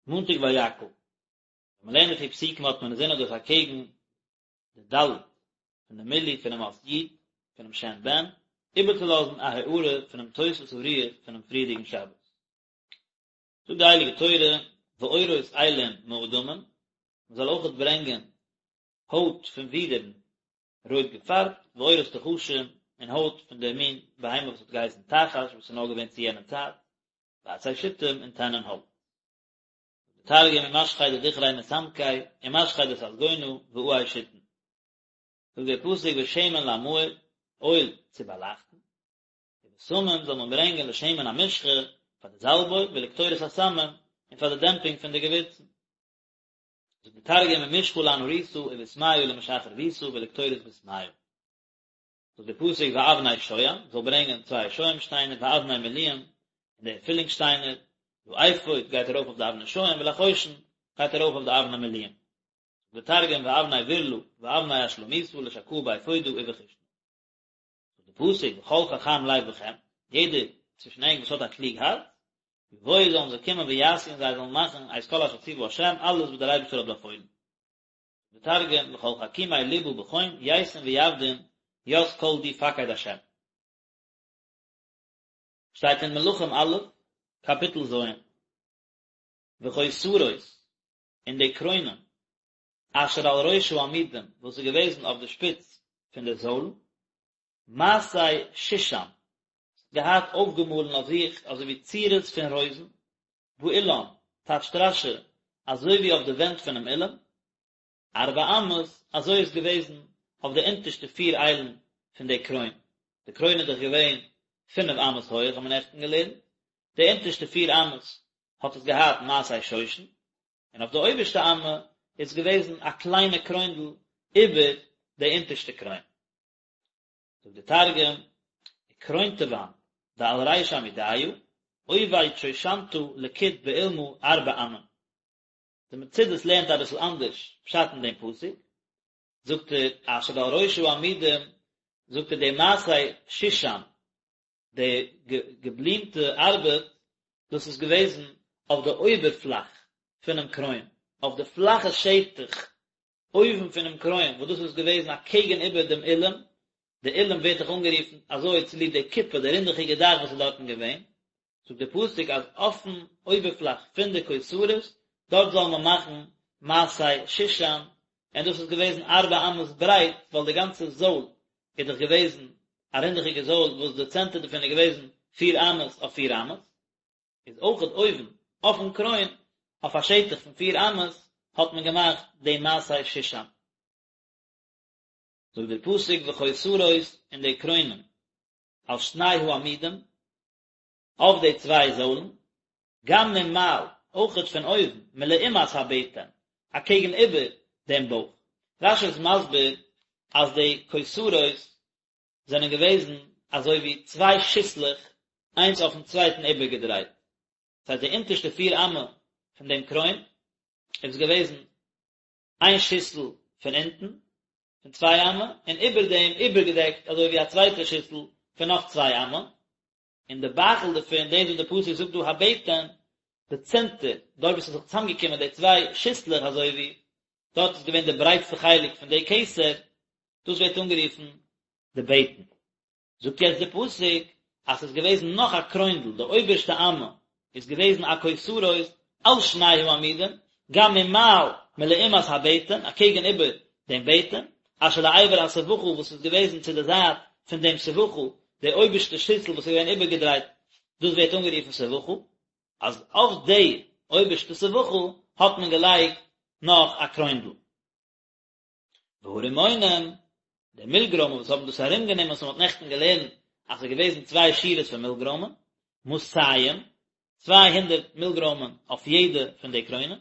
מאנטאג ויקהל. ווען מען לערנט די פיר פסוקים האט מען אינזין אז דאס אקעגן די ד' פון די מילוי פונעם אות י' פונעם שם בן, איבערצולאזן א הארה פונעם תוספת הרוח פונעם פריערדיגן שבת. זאגט די הייליגע תורה, ועורות אילים מאדמים, מען זאל אויכעט ברענגען הויט פון ווידערן רויט געפארבט, ועורות תחשים, און הויט פון דער מין בהמה וואס האט געהייסן תחש, וואס איז נאר געווען צו יענע צייט, ועצי שיטים און טענען האלץ. זאגט דער תרגום ומשכי דדכרי מסמקי ומשכי דססגונא ועיי שיטין. זאגט דער פסוק ושמן למאור, אויל צו באלייכטן, ובשמים זאל מען ברענגען לשמן המשחה פאר די זאלב אויל ולקטורת הסמים און פאר די דעמפינג פון די געווירצן. זאגט דער תרגום ומשחא לאנהורתא ובסמיא למשח רבותא ולקטורת בסמיא. זאגט דער פסוק ואבני שוהם, זאל ברענגען צוויי שוהם שטיינער ואבני מילואים, און די פילינג שטיינער, לאפוד גייט ארויף אויף די אבני שוהם ולחושן גייט ארויף אויף די אבני מילואים. זאגט דער תרגום ואבני ברלא ואבני אשלמיתא לשקאה באפודא ובחושנא. זאגט דער פסוק וכל חכם לב בכם, יעדער צווישן ענק וואס האט א קלוג הארץ, יבואו זאלן זיי קומען ויעשו און זיי זאלן מאכן את כל אשר ציוה ה', אלעס וואס דער אייבערשטער האט באפוילן. דער תרגום וכל חכימי לבא בכון ייתון ויעבדון ית כל די פקיד ה'. שטייט אין מלכים א', קאפיטל ז', וכותרות, און די קרוינען, אשר על ראש העמודים, וואס איז געוועזן אויף די שפיץ פון די זוילן, מעשה שושן, געהאט אויפגעמאלן אויף זיך אזוי ווי צורות פון רויזן, באולם, טייטשט רש"י, אזוי ווי אויף די ווענט פונעם אולם, ארבע אמות, אזוי איז געוועזן אויף די אונטערשטע פיר איילן פון די קרוין, די קרוין איז דאך געווען פינף אמות הויעך האט מען נעכטן געלערנט, די אונטערשטע פיר אמות האט עס געהאט מעשה שושן, און אויף די אויבערשטע אמה איז געוועזן א קליינע קרוינדל איבער די אונטערשטע קרוין. זאגט דער תרגום, וכרונתוון דעל ריש עמודיא, עובד שושנתא לקיט באולמא ארבע אמין. די מצודות לערנט אביסל אנדערש פשט אין דעם פסוק, זאגט ער אשר על ראש העמודים, זאגט ער די מעשה שושן, די געבלימטע ארבעט, דאס איז געוועזן אויף די אויבערפלאך פונעם קרוין, אויף די פלאכע שטח אויבן פונעם קרוין, וואס דאס איז געוועזן אקעגן איבער דעם אולם, די אולם ווערט דאך אנגערופן אזוי צוליב די כיפה, די רינדעכיגע דאך וואס איז דארטן געווען, זאגט דער פסוק אז אויפן אויבערפלאך פון די כותרות, דארט זאל מען מאכן מעשה שושן, און דאס איז געוועזן ארבע אמות ברייט, ווייל די גאנצע זויל איז דאך געוועזן א רינדעכיגע זויל וואס די צענטער דערפון איז געוועזן פיר אמות אויף פיר אמות, איז אויכעט אויבן אויפן קרוין אויף א שטח פון פיר אמות האט מען געמאכט די מעשה שושן. זאגט דער פסוק וכותרות און די קרוינען על שני העמודים אויף די צוויי זוילן, גם ממעל, אויכעט פון אויבן, מלעומת הבטן, אקעגן איבער דעם בויך. רש"י איז מסביר אז די כותרות זענען געוועזן אזוי ווי צוויי שיסלעך איינס אויפן צווייטן איבערגעדרייט, דאס הייסט די אונטערשטע פיר אמה פון דעם קרוין איז געוועזן איין שיסל פון אונטן פון צוויי אמה, און איבער דעם איבערגעדעקט אזוי ווי א צווייטע שיסל פון נאך צוויי אמה, און די בייכל דערפון, דאס וואס די פסוק זאגט דא הבטן, די צענטער, דארט וואו ס'איז זיך צוזאמגעקומען די צוויי שיסלעך אזוי ווי, דארט איז געווען די ברייטסטע חלק פון די כתר, דאס ווערט אנגערופן די בטן. זאגט יעצט די פסוק אז ס'איז געוועזן נאך א קרוינדל, די אויבערשטע אמה איז געוועזן א כותרות על שני העמודים, גם ממעל מלעומת הבטן, אקעגן איבער דעם בטן, אשר לעבר הסבכה וואס איז געוועזן צו די זייט פון דעם סבכה, די אויבערשטע שיסל וואס איז געווען איבערגעדרייט, דאס ווערט אנגערופן סבכה, אז אויף די אויבערשטע סבכה האט מען געלייגט נאך א קרוינדל. והרימונים, די מילגרוימען וואס האבן דאס ארומגענומען וואס מען האט נעכטן געלערנט אז ס'איז געוועזן צוויי שורות פון מילגרוימען, מאתים, 200 מילגרוימען אויף יעדע פון די קרוינען,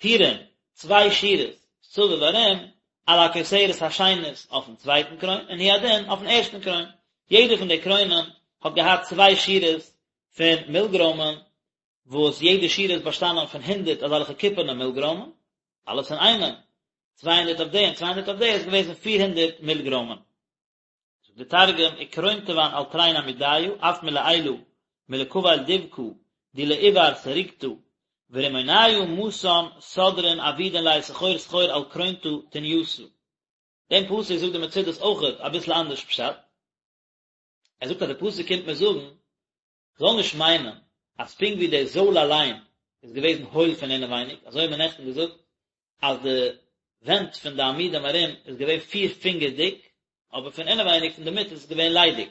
טורים, צוויי שורות, סביב ארום, על הכותרת השנית אויפן צווייטן קרוין, און הוא הדין אויפן ערשטן קרוין. יעדע פון די קרוינען האט געהאט צוויי שורות פון מילגרוימען, וואס יעדע שורה איז באשטאנען פון הונדערט אזעלכע קופערנע מילגרוימען, אלעס אין איינעם, 200 אויף די און 200 אויף די איז געוועזן 400 מילגרוימען. זאגט די תרגום, וכרונתוון על תרין עמודיא, אף מלעילא, מלקבל דבקא, די לעבר סרוגתא. ורמוניא מתן סדרין עבידין ליה סחור סחור על קרונתא תניתא. דעם פסוק זאגט די מצודות אויכעט אביסל אנדערש פשט. ער זאגט אז די פסוק קומט מיר זאגן, זאל נישט מיינען אז פונקט ווי די זויל אליין איז געוועזן הויל פון אינעווייניג, אזוי האט מען נעכטן געזאגט אז די ווענט פון די עמודים ארום איז געווען פיר פינגער דיק, אבער פון אינעווייניג פון די מיט איז עס געווען ליידיג,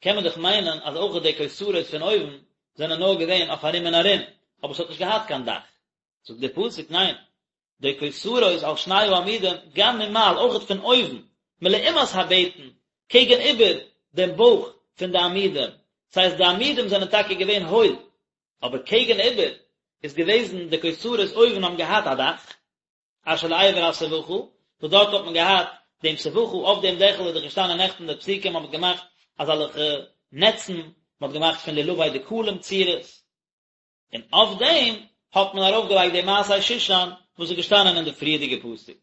קען מען דאך מיינען אז אויך די כותרות פון אויבן זענען נאר געווען אויף ארום און ארום, אבער עס האט נישט געהאט קיין דאך. זאגט דער פסוק, ניין, די כותרות על שני העמודים, גם ממעל, אויכעט פון אויבן, מלעומת הבטן, קעגן איבער דעם בויך פון די עמודים, ס'הייסט די עמודים זענען טאקע געווען הויל, אבער קעגן איבער איז געוועזן די כותרות אויבן האבן געהאט א דאך, אשר לעבר הסבכה, וואס דארט האט מען געהאט דעם סבכה, אויף דעם דעכל איז דאך געשטאנען נעכטן די פסוקים האט מען געמאכט אזעלכע נעצן, מען האט געמאכט פון לולבי דקלים צורות, און אויף דעם האט מען ארויפגעלייגט די מעשה שושן וואס איז געשטאנען אין די פריערדיגע פסוק.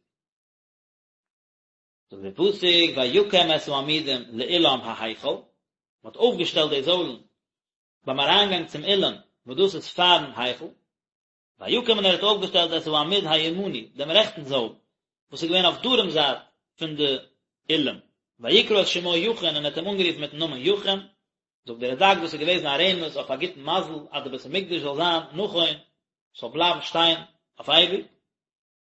זאגט דער פסוק ויקם את העמודים לאולם ההיכל, מען האט אויפגעשטעלט די זוילן ביים אריינגאנג צום אולם וואס דאס איז פארן היכל, ויקם און ער האט אויפגעשטעלט את העמוד הימני, דעם רעכטן זויל, וואס איז געווען אויף דרום זייט פון די אולם, ויקרא את שמו יכין און ער האט אים אנגערופן מיטן נאמען יכין, זאגט דער רד"ק דאס איז געוועזן א רמז אויף א גוטן מזל אז די בית המקדש זאל זיין נכון, ס'זאל בלייבן שטיין אויף אייביג.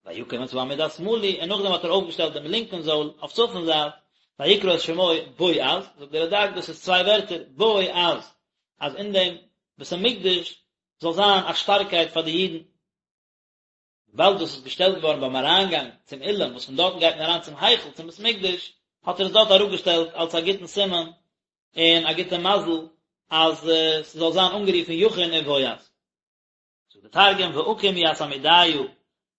ויקם את העמוד השמאלי, און נאכדעם האט ער אויפגעשטעלט דעם לינקן זויל אויף צפון זייט, ויקרא את שמו בועז, זאגט דער רד"ק דאס איז צוויי ווערטער, בועז, אז אין דעם בית המקדש זאל זיין א שטארקייט פאר די אידן. וויבאלד דאס איז געשטעלט געווארן ביים אריינגאנג צום אולם, וואס פון דארטן גייט מען אריין צום היכל, צום בית המקדש, האט ער עס דארט אראפגעשטעלט אלס א גוטן סימן און א גוטע מזל אז ס'זאל זיין אנגערופן יכין און בועז. זאגט די תרגום ואקים ית עמודיא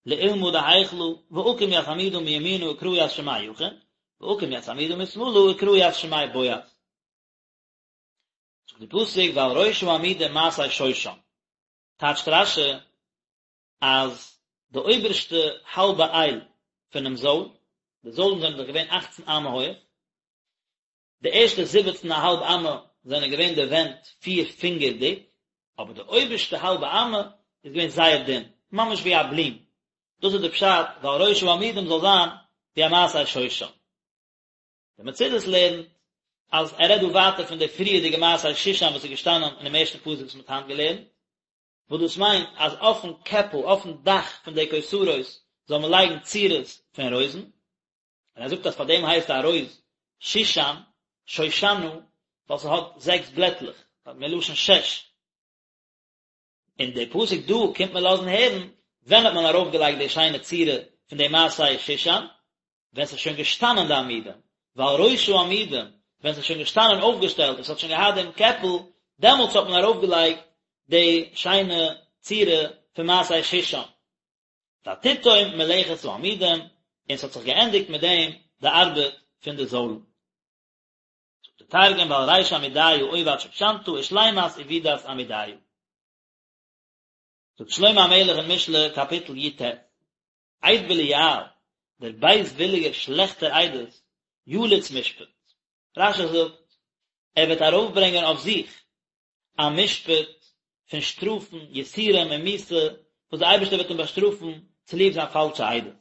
לאולמא דהיכלא ואקים ית עמודא מימינא וקרא ית שמיה יכין ואקים ית עמודא משמאלא וקרא ית שמיה בועז. זאגט די פסוק ועל ראש העמודים מעשה שושן, טייטשט רש"י אז די אויבערשטע האלבע אייל פונעם זויל, די זוילן זענען דאך געווען אכצן אמה הויעך, די ערשטע זיבעצן א האלב אמה זענען געווען די ווענט פיר פינגער דיק, אבער די אויבערשטע האלבע אמה איז געווען זייער דין, ממש ווי א בלום, דאס איז די פשט ועל ראש העמודים זאל זיין ווי א מעשה שושן. די מצודות לערנט אז ער רעדט דא ווייטער פון די פריערדיגע מעשה שושן וואס איז געשטאנען אינעם ערשטן פסוק וואס מען האט היינט געלערנט, וואס דאס מיינט אז אויפן קעפל, אויפן דאך פון די כותרות זאל מען לייגן צורות פון רויזן, און ער זאגט אז פאר דעם הייסט א רויז שושן, שושנה, ווייל ס'האט זעקס בלעטלעך, מלשון שש. און די פסוק דא קומט מען לאזן הערן, ווען האט מען ארויפגעלייגט די שיינע צורה פון די מעשה שושן? ווען ס'איז שוין געשטאנען די עמודים, ועל ראש העמודים, ווען ס'איז שוין געשטאנען אויפגעשטעלט און ס'האט שוין געהאט דעם קעפל, דעמאלטס האט מען ארויפגעלייגט די שיינע צורה פון מעשה שושן. ותתם מלאכת העמודים, און ס'האט זיך געענדיגט מיט דעם די ארבעט פון די זוילן. זאגט דער תרגום ועל ריש עמודיא עובד שושנתא ושלימת עבידת עמודיא. זאגט שלמה המלך אין משלי קאפיטל י"ט, עד בליעל, דער בייזוויליגער שלעכטער עדות, יליץ משפט. רש"י זאגט, ער וועט ארויפברענגען אויף זיך א משפט פון שטראפן, יסורים און מיתה, וואס דער אייבערשטער וועט אים באשטראפן צוליב זיין פאלשע עדות.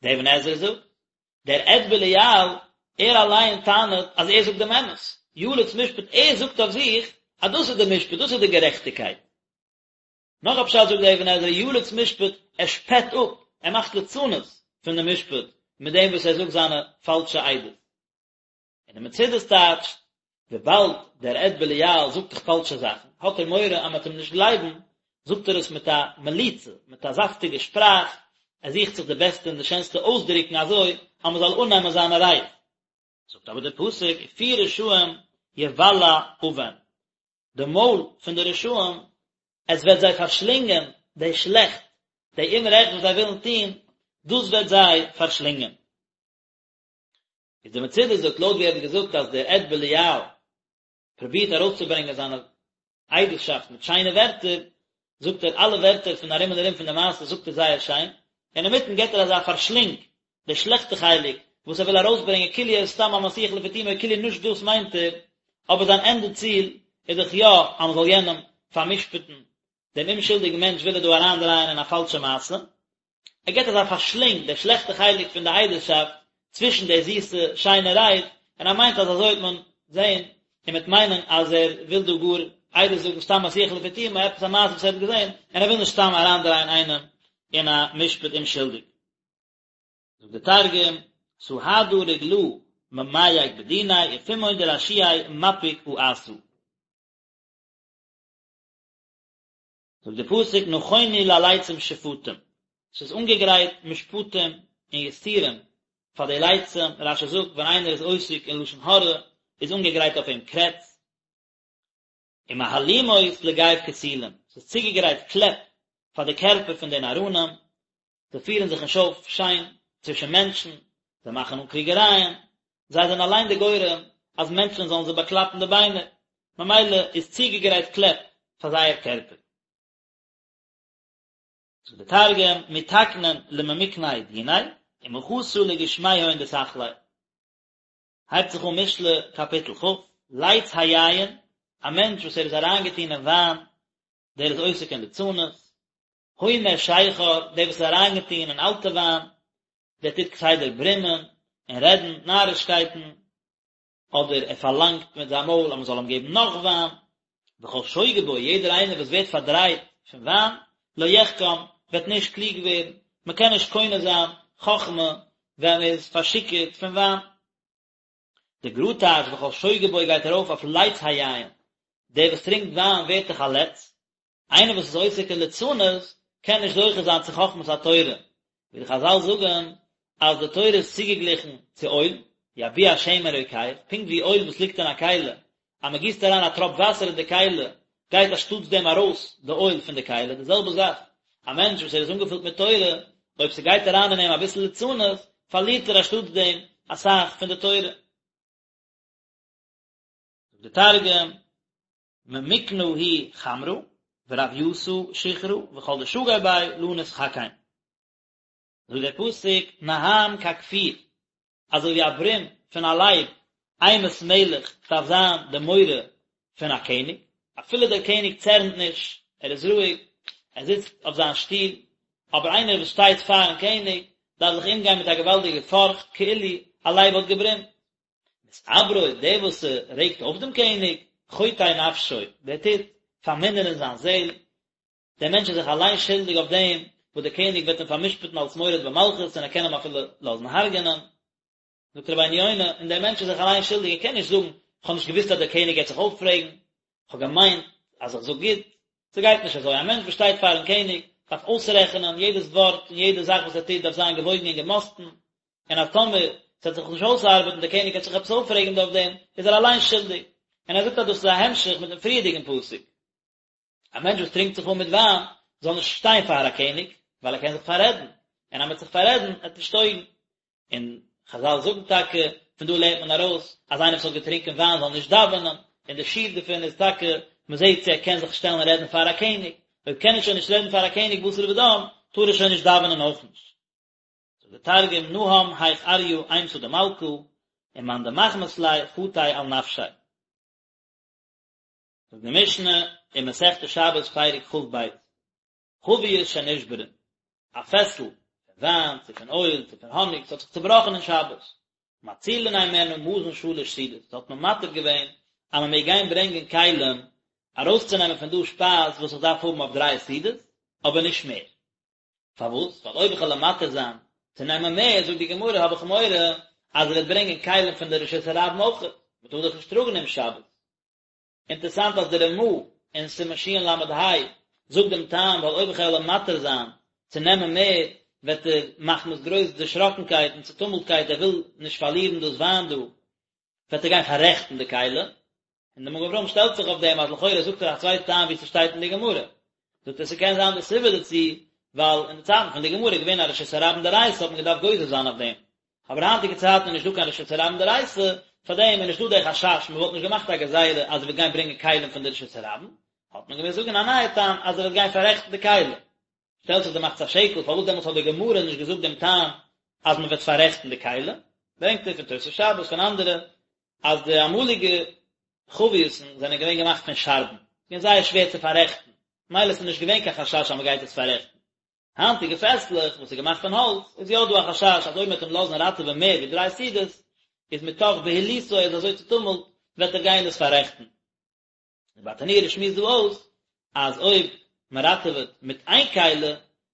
דער אבן עזרא זאגט, דער עד בליעל, ער אליין טענה'ט אז ער זאגט דעם אמת, יליץ משפט, ער זאגט אויף זיך אז דאס איז דער משפט, דאס איז די גערעכטיגקייט. נאך א פשט זאגט דער אבן עזרא, יליץ משפט, ער שפעט אפ, ער מאכט ליצנות פון דעם משפט, מיט דעם וואס ער זאגט זיינע פאלשע עדות. און די מצודות טייטשט, וויבאלד דער עד בליעל זאגט דאך פאלשע זאכן, האט ער מורא אז מען וועט אים נישט גלייבן, זאגט ער עס מיט א מליצה, מיט א זאפטיגע שפראך, ער זוכט זיך די בעסטע און די שענסטע אויסדרוקן אזוי אז מען זאל אננעמען זיינע רייד. זאגט אבער דער פסוק, ופי רשעים יבלע און, די מויל פון די רשעים, עס וועט זיי פארשלינגען די שלעכט, די אומרעכט וואס זיי ווילן טון, דאס וועט זיי פארשלינגען. איז די מצודות זאגט לויט ווי ער האט געזאגט אז דער עד בליעל פרובירט ארויסצוברענגען זיינע עדות'שאפט מיט שיינע ווערטער, זאגט ער אלע ווערטער פון ארום און ארום פון די מעשה זאגט ער זייער שיין, און אינמיטן געבט ער אזא פארשלינג די שלעכטע חלק וואס ער וויל ארויסברענגען כאילו ער איז סתם א מסיח לפי תומו כאילו נישט דאס מיינט ער, אבער זיין ענדע ציל איז דאך יא אז מען זאל יענעם פאר'משפט'ן. דעם אומשולדיגן מענטש וויל ער דא אריינדרייען אין א פאלשע מעשה, ער געבט אזא פארשלינג די שלעכטע חלק פון די עדות'שאפט צווישן די זיסע שיינע רייד, און ער מיינט אז אזוי וועט מען זען און מ'וועט מיינען אז ער וויל דא גאר עדות זאגן סתם מסיח לפי תומו עפעס א מעשה וואס ער האט געזען, און ער וויל נישט סתם אריינדרייען איינעם אין א משפט אומשולדיג. זאגט די תרגום, סהדא רגלא ממייק בדיניה ופומהון דרשיעי מפיק אעתא. זאגט די פסוק נכונו ללצים שפטים, ס'איז אנגעגרייט משפטים און יסורים פאר די לצים, רש"י זאגט ווען איינער איז עוסק אין לשון הרע איז אנגעגרייט אויף אים קרעץ, ומהלומות לגו כסילים, ס'איז צוגעגרייט קלעפ פאר די קערפער פון די נאראנים, זיי פירן זיך נישט אויף שיין צווישן מענטשן, זיי מאכן אן קריגערייען, זיי זענען אליין די גורם אז מענטשן זאלן זיי באקלאפן די ביינער, ממילא איז צוגעגרייט קלעפ פאר זייער קערפער. זאגט די תרגום, מתקנין לממיקני דיניה, ומחתא לגושמיהון דסכלי. הייבט זיך אן משלי קאפיטל כ', לץ היין, א מענטש וואס ער איז אריינגעטון אין וויין, דער איז עוסק אין ליצנות, הומה שכר, דער וואס איז אריינגעטון אין אלטע וויין, דער טוט כסדר ברומען און רעדן נארישקייטן, אדער ער פארלאנגט מיט זיין מויל אז מען זאל אים געבן נאך וויין, וכל שוגה בו, יעדער איינער וואס ווערט פארדרייט פון וויין, לא יחכם, וועט נישט קלוג ווערן, מען קען נישט קונה זיין חכמה ווען מען איז פארשיכורט פון וויין. די גר"א טייטשט וכל שוגה בו גייט ארויף אויף לץ היין, דער וואס טרינקט וויין ווערט דאך א לץ, איינער וואס איז עוסק אין ליצנות קען נישט זוכה זיין צו חכמת התורה, ווי די חז"ל זאגן אז די תורה איז צוגעגליכן צו אויל, יביע שמן רוקח, פונקט ווי אויל וואס ליגט אין א כלי, אז מען גיסט אריין א טראפ וואסער אין די כלי, גייט אנשטאטס דעם ארויס די אויל פון די כלי, די זעלבע זאך, א מענטש וואס ער איז אנגעפילט מיט תורה, אויב ס'גייט אריין אין אים אביסל ליצנות, פארלירט ער אנשטאטס דעם אסאך פון די תורה. זאגט די תרגום, ממיקנא הוא חמרא, ורבייתא שיכרא, וכל דשגי ביה לא נתחכם. זאגט דער פסוק, נהם ככפיר, אזוי ווי א ברום פון א לייב, אימת מלך דארף זיין די מורא פון א קעניג, אפילו דער קעניג צערנט נישט, ער איז רואיג, ער זיצט אויף זיין שטול, אבער איינער וואס שטייט פארן קעניג דארף זיך אומגיין מיט א געוואלדיגע פארכט, כאילו א לייב האט געברומט. מתעברו, דער וואס רעגט אויף דעם קעניג, חוטא נפשו, דער טוט פארמינערן זיין זעל, דער מענטש איז זיך אליין שולדיג אויף דעם וואס דער קעניג וועט אים פאר'משפט'ן אלס מורד במלכות און ער קען אים אפילו לאזן הרג'ענען. זאגט רבינו יונה, און דער מענטש איז זיך אליין שולדיג, ער קען נישט זאגן, איך האב נישט געוואוסט אז דער קעניג גייט זיך אויפרעגן, איך האב געמיינט אז איך זאג גוט. ס'גייט נישט אזוי, א מענטש וואס שטייט פאר'ן קעניג דארף אויסרעכענען יעדעס ווארט און יעדע זאך וואס ער טוט דארף זיין געוואויגן און געמאסטן, און אז טאמער ס'וועט זיך נישט אויסארבעטן, דער קעניג וועט זיך עפעס אויפרעגן אויף דעם, איז ער אליין שולדיג. און ער זאגט אז דאס איז א המשך מיט דעם פריערדיגן פסוק. א מענטש וואס טרינקט זיך אן מיט וויין, זאל נישט שטיין פאר א קעניג, ווייל ער קען זיך פאררעדן, און אז מ'וועט זיך פאררעדן, וועט נישט טויגן. און חזל זאגן טאקע, פון דא לערנט מען ארויס, אז איינער וואס האט געטרינקען וויין זאל נישט דאווענען, און די שיעור דערפון איז טאקע, מ'זעט צו ער קען זיך שטעלן רעדן פאר א קעניג, אויב קען ער שוין נישט רעדן פאר א קעניג בשר ודם, טאר ער שוין נישט דאווענען אויך נישט. זאגט דער תרגום, נהם היך אריא אימתא דמלכא, ומאן דמחמת ליה חטי על נפשיה. זאגט די משנה אין מסכת שבת פרק כ"ב, חבית שנשברה, א פעסל פון וויין צו פון אויל צו פון האניג, ס'האט זיך צובראכן אין שבת, מצילין הימנה מזון שלש סעודות, האט מען מתיר געווען אז מען מעג גיין ברענגען כלים ארויסצונעמען פון דא שפייז וואס איך דארף האבן אויף דריי סעודות, אבער נישט מער. פארוואס? ווייל אויב איך וועל אים מתיר זיין צו נעמען מער, זאגט די גמרא, האב איך מורא אז ער וועט ברענגען כלים פון די רשות הרבים אויך, מען טאר דאך נישט טראגן אום שבת. אינטערסאנט אז די רמ"א אין סימן של"ה זאגט דעם טעם ווייל אויב איך וועל אים מתיר זיין צו נעמען מער וועט ער מחמת גרויס דערשראקנקייט און צוטומלטקייט ער וויל נישט פארלירן דאס וויין דא וועט ער גיין פאררעכטן די כלי, און דער מגן אברהם שטעלט זיך אויף דעם אז לכאורה זאגט ער א צווייטע טעם ווי ס'שטייט אין די גמרא, זאגט ער ס'קען זיין די סיבה דערצו ווייל אין די צייטן פון די גמרא איז געווען א רשות הרבים דאורייתא האט מען געדארפט גוזר זיין אויף דעם, אבער היינטיגע צייטן איז נישט דא קיין רשות הרבים דאורייתא, פאר דעם איז נישט דא דער חשש, מען וואלט נישט געמאכט א גזירה אז ער וועט גיין ברענגען כלים פון די רשות הרבים, האט מען געמוזט זאגן א נייע טעם אז ער וועט גיין פאררעכטן די כלים. שטעלט זיך די מחצית השקל פארוואס דעמאלטס האט די גמרא נישט געזאגט דעם טעם אז מען וועט פאררעכטן די כלים, ברענגט ער פון תוס' שבת פון אנדערע אז די אמאליגע חביות'ן זענען געווען געמאכט פון שארבן, געווען זייער שווער צו פאררעכטן. מילא ס'איז נישט געווען קיין חשש אז מ'גייט עס פאררעכטן. היינטיגע פעסלעך וואס איז געמאכט פון האלץ, איז יא דא א חשש אז אויב מ'וועט אים לאזן ראטעווען מער ווי דריי סעודות, איז מתוך בהילותו ער איז אזוי צוטומלט, וועט ער גיין עס פאררעכטן. די ברטנורא שמועסט דא אויס אז אויב מען ראטעוועט מיט איין כלי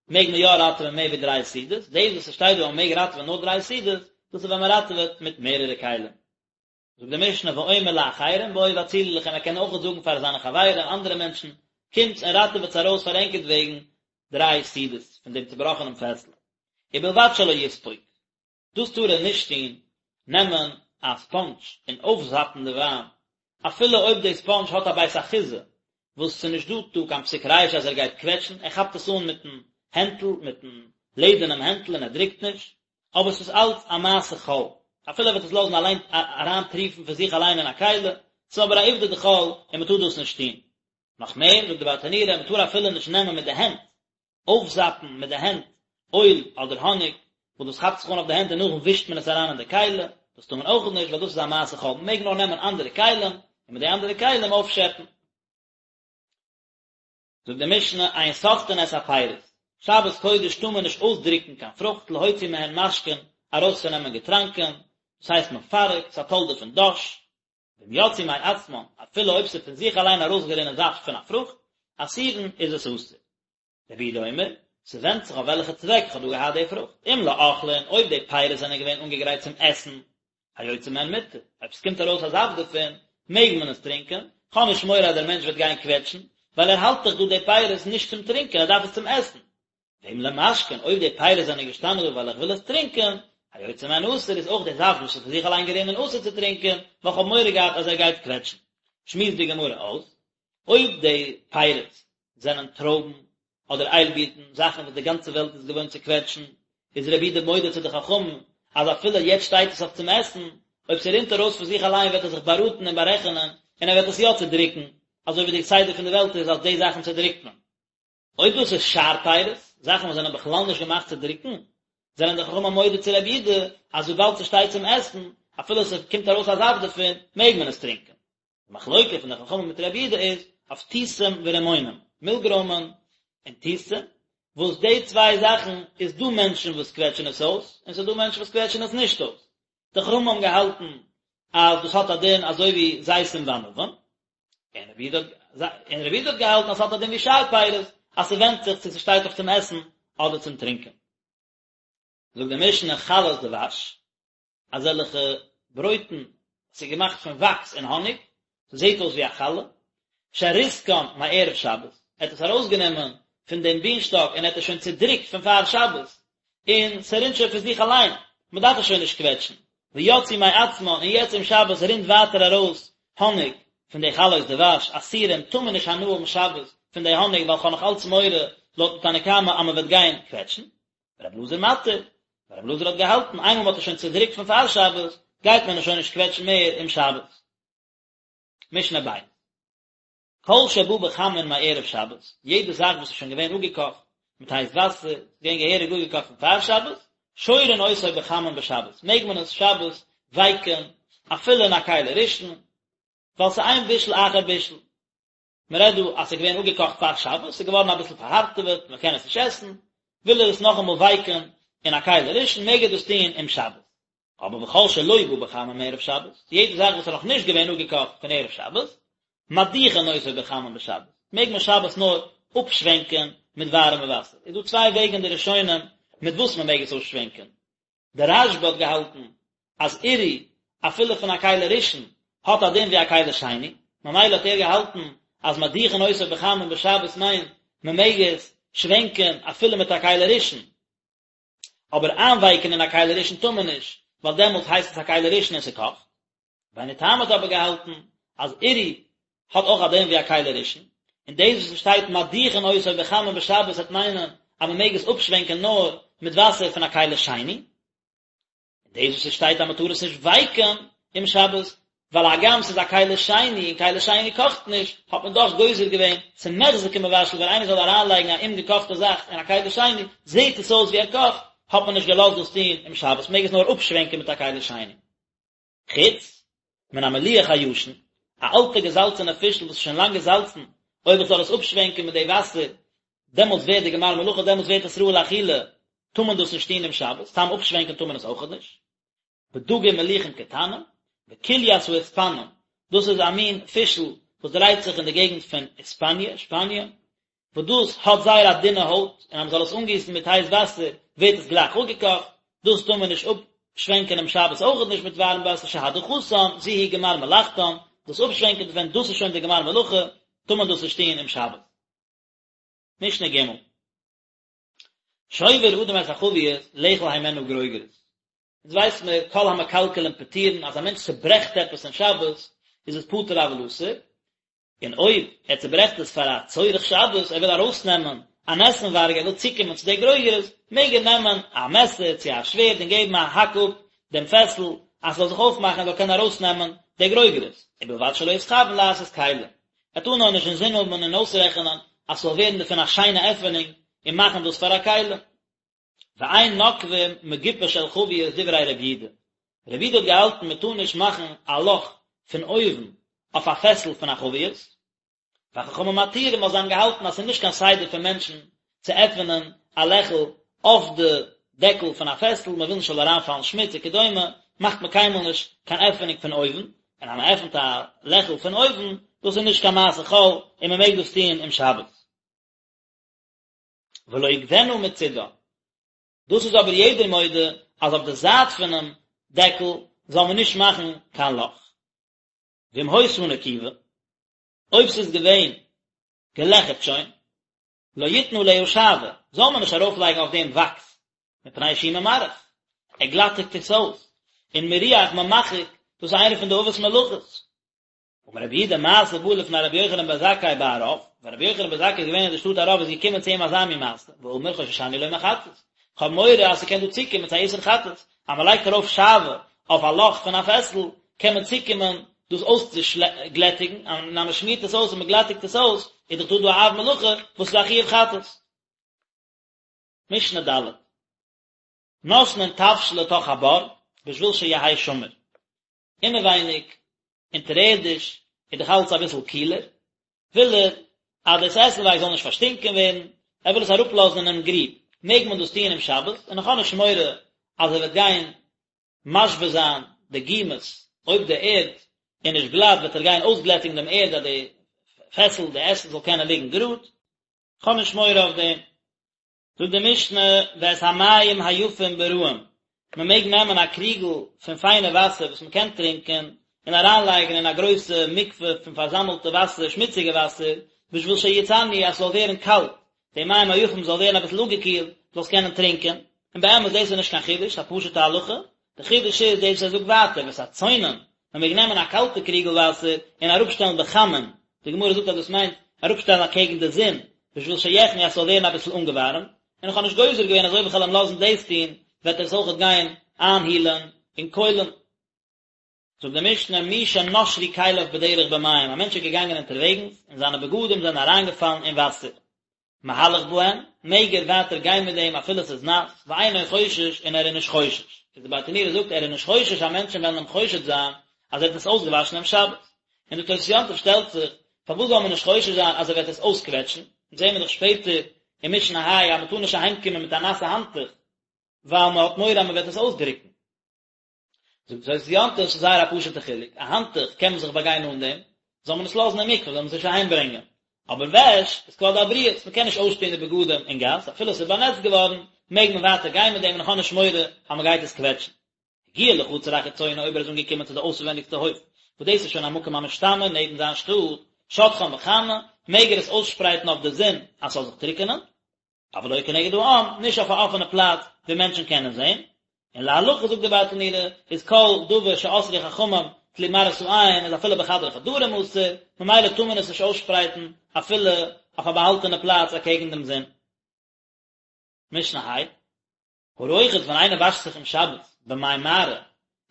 מעג מען יא ראטעווען מער ווי דריי סעודות, דאס וואס עס שטייט דא אז מען מעג ראטעווען נאר דריי סעודות, דאס איז ווען מען ראטעוועט מיט מערערע כלים. זאגט די משנה ואומר לאחרים בואו והצילו לכם ער קען אויך זאגן פאר זיינע חברים אנדערע מענטשן קומטס און ראטעוועטס ארויס פאר ענקערט וועגן דריי סעודות פון דעם צובראכענעם פעסל ובלבד שלא יספוג. דאס טאר ער נישט טון, נעמען א ספאנדזש און אויפזאפן די וויין, אפילו אויב די ספאנדזש האט א בית אחיזה, וואס ס'איז נישט דא דא קיין פסיק רישא אז ער גייט קוועטשן, ער כאפט עס אן מיטן הענטל, מיטן לעדערנעם הענטל און ער דרוקט נישט, אבער ס'איז אלץ א מעשה חול, אפילו ער וועט עס לאזן אליין אריינטריפן פון זיך אליין אין א כלי, ס'איז אבער א עובדא דחול און מ'טאר דאס נישט טון. נאך מער, זאגט די ברטנורא, מ'טאר אפילו נישט נעמען מיט די הענט, אויפזאפן מיט די הענט אויל אדער האניג, וואס דאס כאפט זיך אן אויף די הענט און נאכדעם ווישט מען עס אריין אין די כלי, דאס טאר מען אויך נישט ווייל דאס איז א מעשה חול, מען מעג נאר נעמען אנדערע כלים און מיט די אנדערע כלים אויפשעפן. זאגט די משנה, אין סוחטין את הפירות, שבת קודש טאר מען נישט אויסדרוקן קיין פרוכט להוציא מהן משקין, ארויסצונעמען געטראנקען, דאס הייסט מפרק, ס'איז א תולדה פון דש, ואם יצאו מעצמן, אפילו אויב ס'איז פון זיך אליין ארויסגערינען זאפט פון א פרוכט, אסורין, איז עס אסור. רבי יהודה אומר, ס'ווענדט זיך אויף וועלכע צוועק איך האב דא געהאט די פרוכט, אם לאוכלין, אויב די פירות זענען געווען אנגעגרייט צום עסן, היוצא מהן מותר, אויב ס'קומט ארויס א זאפט דערפון, מעג מען עס טרינקען, כ'האב נישט מורא אז דער מענטש וועט גיין קוועטשן, ווייל ער האלט דאך דא די פירות נישט צום טרינקען, ער דארף עס צום עסן. ואם למשקין, אויב די פירות זענען געשטאנען דא ווייל איך וויל עס טרינקען, היוצא מהן אסור, איז אויך די זאפט וואס איז פון זיך אליין גערינען אסור צו טרינקען, ווייל כ'האב מורא געהאט אז ער גייט קוועטשן. שמועסט די גמרא אויס, אויב די פירות זענען טרויבן אדער איילבירטן, זאכן וואס די גאנצע וועלט איז געוואוינט צו קוועטשן, איז רבי יהודה מודה צו די חכמים אז אפילו יעצט שטייט עס אויף צום עסן, אויב ס'רינט ארויס פון זיך אליין וועט ער זיך באראטן און בארעכענען און ער וועט עס יא צודריקן, אזוי ווי די סדר פון די וועלט איז אז די זאכן צודריקט מען. אויב דאס איז שאר פירות, זאכן וואס זענען בכלל נישט געמאכט צו דריקן, זענען די חכמים מודה צו רבי יהודה אז וויבאלד ס'שטייט צום עסן, אפילו ס'קומט ארויס א זאפט דערפון, מעג מען עס טרינקען. די מחלוקה פון די חכמים מיט רבי יהודה איז אויף תותים ורימונים, מילגרוימען און תותים, וואס די צוויי זאכן איז דא מענטשן וואס קוועטשן עס אויס, און ס'איז דא מענטשן וואס קוועטשן עס נישט אויס. די חכמים האבן געהאלטן אז דאס האט א דין אזוי ווי זיתים וענבים, און רבי יהודה און רבי יהודה האט געהאלטן אז ס'האט א דין ווי שאר פירות, אז ס'ווענדט זיך צו ס'שטייט אויף צום עסן אדער צום טרינקען. זאגט די משנה חלות דבש, אזעלכע ברויטן וואס איז געמאכט פון וואקס און האניג, ס'זעט אויס ווי א חלה, שריסקן מערב שבת, ער האט עס ארויסגענומען פון דעם בינשטאק און ער האט עס שוין צודריקט פון פאר שבת, און ס'רינט שוין פון זיך אליין, מ'דארף עס שוין נישט קוועטשן, ויצאו מעצמן, און יעצט אום שבת רינט ווייטער ארויס האניג פון די חלות דבש, אסורים, טאר מען נישט הנאה האבן שבת פון די האניג ווייל כ'האב נאך אלץ מורא לויטן תנא קמא אז מ'וועט גיין קוועטשן. רבי אלעזר מתיר, רבי אלעזר האט געהאלטן איינמאל מ'האט עס שוין צודריקט פון פאר שבת, גייט מען עס שוין נישט קוועטשן מער אום שבת. משנה ב'. כל שבא בחמין מערב שבת, יעדע זאך וואס איז שוין געווען אפגעקאכט מיט הייס וואסער, איז געווען געהעריג אפגעקאכט פון פאר שבת, שורין אותו בחמין בשבת, מעג מען עס שבת ווייקען אפילו אין א כלי ראשון, ווייל ס'איז אין בישול אחר בישול. מען רעדט דא אז ס'איז געווען אפגעקאכט פאר שבת, ס'איז געווארן אביסל פארהארטעוועט, מען קען עס נישט עסן, וויל ער עס נאכאמאל ווייקען אין א כלי ראשון, מעג ער דאס טון אום שבת. אבער וכל שלא בא בחמין מערב שבת, יעדע זאך וואס איז נאך נישט געווען אפגעקאכט פון ערב שבת, מדיחין אותו בחמין בשבת, מעג מען שבת נאר אפשווענקען מיט ווארעמע וואסער. איז דא צוויי וועגן אין די ראשונים מיט וואס מען מעג עס אפשווענקען. דער רשב"א האט געהאלטן אז עירוי אפילו פון א כלי ראשון האט א דין ווי א כלי שני, ממילא האט ער געהאלטן אז מדיחין אותו בחמין בשבת מיינט מען מעג עס שווענקען אפילו מיט א כלי ראשון. אבער איינווייקען אין א כלי ראשון טאר מען נישט, ווייל דעמאלטס הייסט עס א כלי ראשון און ס'קאכט. רבינו תם האט אבער געהאלטן אז עירוי האט אויך א דין ווי א כלי ראשון, און דאס וואס ס'שטייט מדיחין אותו בחמין בשבת וועט מיינען אז מ'מעג עס אפשווענקען נאר מיט וואסער פון א כלי שני. און דאס וואס עס שטייט אז מען טאר עס נישט ווייקען אום שבת, ווייל הגם ס'איז א כלי שני און כלי שני קאכט נישט, האט מען דאך גוזר געווען ס'מוחזק כמבשל ווען איינער זאל אריינלייגן א אומגעקאכטע זאך אין א כלי שני, זעט עס אויס ווי ער קאכט, האט מען נישט געלאזט דאס טון אום שבת, מעג עס נאר אפשווענקען מיט א כלי שני. חוץ מן המליח הישן, א אלטע געזאלצענע פישל וואס איז שוין לאנג געזאלצן, אויב איך זאל עס אפשווענקען מיט די וואסער, דעמאלטס ווערט די גמר מלאכה, דעמאלטס ווערט עס ראוי לאכילה, טאר מען דאס נישט טון אום שבת, סתם אפשווענקען טאר מען עס אויכעט נישט. בדגים מלוחים קטנים, בקוליית האיספנים, דאס איז א מין פישל וואס דרייט זיך אין די געגנט פון היספאניע, שפאניע, וואס דאס האט זייער א דינע הויט, און אז מען זאל עס אנגיסן מיט הייס וואסער ווערט עס גלייך אפגעקאכט, דאס טאר מען נישט אפשווענקען אום שבת אויכעט נישט מיט ווארעם וואסער שהדחתן זו היא גמר מלאכתן, דאס אפשווענקען דערפון דאס איז שוין די גמר מלאכה, טאר מען דאס נישט טון אום שבת. משנה ג'. שובר אדם את החבית לאכול הימנה גרוגרות. אונז ווייס מיר כל המקלקלין פטורין אז א מענטש צוברעכט עפעס אין שבת איז עס פטור אבל אסור, און אויב ער צוברעכט עס פאר א צורך שבת, ער וויל ארויסנעמען אן עסנווארג, ער וויל צוקומען צו די גרוגרות, מעג ער נעמען א מעסער צו א שווערד און געבן א האק אפ דעם פעסל אז ס'זאל זיך אויפמאכן ער זאל קענען ארויסנעמען די גרוגרות, ובלבד שלא יתכוין לעשות כלי. ער טאר נאר נישט אינזין האבן און אויסרעכענען אז ס'זאל ווערן דערפון א שיינע עפענונג און מאכן דאס פאר א כלי. ואין נוקבין מגופה של חבית דברי רבי יהודה. רבי יהודה האט געהאלטן מען טאר נישט מאכן א לאך פון אויבן אויף א פעסל פון א חבית. וחכמים מתירים ווייל זיי האבן געהאלטן אז ס'איז נישט קיין סדר פון מענטשן צו עפענען א לעכל אויף די דעקל פון א פעסל, מען וויל נישט ס'זאל אריינפאלן שמוץ וכדומה, מאכט מען קיינמאל נישט קיין עפענונג פון אויבן, און אז מען עפנט א לעכל פון אויבן, דאס איז נישט קיין מעשה חול און מען מעג דאס טון אום שבת. ולא יקבנה מצידה, דאס איז אבער יעדער מודה אז אויף די זייט פונעם דעקל זאל מען נישט מאכן קיין לאך. ואם היתה נקובה, אויב ס'איז געווען געלעכערט שוין, לא יתן עליה שעוה, זאל מען נישט ארויפלייגן אויף דעם וואקס, מפני שהוא ממרח, ער גלאטיגט עס אויס, און מירוח ממחק, דאס איז איינע פון די אבות מלאכות. אמר רבי יהודה מעשה בא לפני רבי יוחנן בן זכאי בערב, ווען רבי יוחנן בן זכאי איז געווען אין די שטאט ערב איז געקומען צו אים אזא מין מעשה, ואמר חוששני לומר חטאת, כ'האב מורא אז ס'קען דא צוקומען צו א איסור חטאת, אז מ'לייגט ארויף שעוה אויף א לאך פון א פעסל, קען מען צוקומען דאס אויסצוגלעטיגן, און אז מ'שמירט עס אויס און מ'גלעטיגט עס אויס, איז דאך דא דא א אב מלאכה וואס איז א חיוב חטאת. משנה ד'. נותנין תבשיל לתוך הבור, בשביל שיהא שמור. אינעווייניג, אונטערערדיש, איז דאך אלץ אביסל קילער, וויל ער אז דאס עסנווארג זאל נישט פארשטינקען ווערן, ער וויל עס אראפלאזן אינעם גריב, מעג מען דאס טוען אום שבת, און איך האב נישט מורא אז ער וועט גיין משווה זיין די גומות, אויב די ערד איז נישט גלאט וועט ער גיין אויסגלעטיגן דעם ערד אז די פעסל, די עסן זאל קענען ליגן גראד, איך האב נישט מורא אויף דעם. זאגט די משנה ואת המים היפים ברעים, מען מעג נעמען א קריגל פון פיינע וואסער וואס מען קען טרינקען און אריינלייגן אין א גרויסע מקווה פון פארזאמלטע וואסער, שמוציגע וואסער, בשביל שיצננו אז ס'זאל ווערן קאלט, די מים היפים זאל ווערן אביסל אפגעקילט, זאלסט קענען טרינקען, און באמת דאס איז נישט קיין חידוש, א פשוטע הלכה, די חידוש איז דאס וואס ער זאגט ווייטער, ואת הצונן, מען מעג נעמען א קאלטע קריגל וואסער און אראפשטעלן בחמין, די גמרא זאגט אז דאס מיינט אראפשטעלן אקעגן די זון, בשביל שיחמו אז ס'זאל ווערן אביסל אנגעווארעמט, און איך האב נישט גוזר געווען אז אויב איך וועל אים לאזן דאס טון, וועט ער עס אויכעט גיין איינהילען אין קוילן. זאגט די משנה, מי שנשרו כליו בדרך במים, א מענטש איז געגאנגען אונטערוועגנס און זיינע בגדים זענען אריינגעפאלן אין וואסער, מהלך בהן, מעג ער ווייטער גיין מיט דעם אפילו עס איז נאס, ואינו חושש און ער איז נישט חושש. איז די ברטנורא זאגט ער איז נישט חושש אז מענטשן וועלן אים חושד זיין אז ער האט עס אויסגעוואשן אום שבת. און די תוס' יום טוב שטעלט זיך, פארוואס זאל מען נישט חושש זיין אז ער וועט עס אויסקוועטשן? אונז זעהן מיר דאך שפעטער אין משנה ה' אז מען טאר נישט אהיימקומען מיט א נאסע האנטוך ווייל מען האט מורא אז מען וועט עס אויסדרוקן. זאגט תוס' יום טוב, ס'איז זייער א פשוט'ע חילוק, א האנטוך קען מען זיך באגיין אן דעם, זאל מען עס לאזן אין מקווה, זאל מען עס נישט אהיים ברענגען. אבער וועש איז כבוד הבריות, מען קען נישט אויסטון די בגדים אין גאס, אפילו עס איז באנעצט געווארן, מעג מען ווייטער גיין מיט דעם און איך האב נישט מורא אז מען גייט עס קוועטשן. הגיע לחצר החיצונה אויב ער איז אנגעקומען צו די אויסווענדיגסטע הויף, וואס דאס איז שוין א מקום המשתמר נעבן זיין שטאט, שוטחן בחמה, מעג ער עס אויסשפרייטן אויף די זון אז ס'זאל זיך טרוקענען, אבל לא כנגד העם, נישט אויף א אפענע פלאץ ווי מענטשן קענען זען, און להלכה זאגט די ברטנורא, איז כל דבר שאסרו חכמים תלוי מראית העין איז אפילו בחדרי חדרים אסור, ממילא טאר מען עס נישט אויסשפרייטן אפילו אויף א באהאלטענע פלאץ אקעגן דעם זון. משנה ה', הרוחץ ווען איינער וואשט זיך אום שבת במי מערה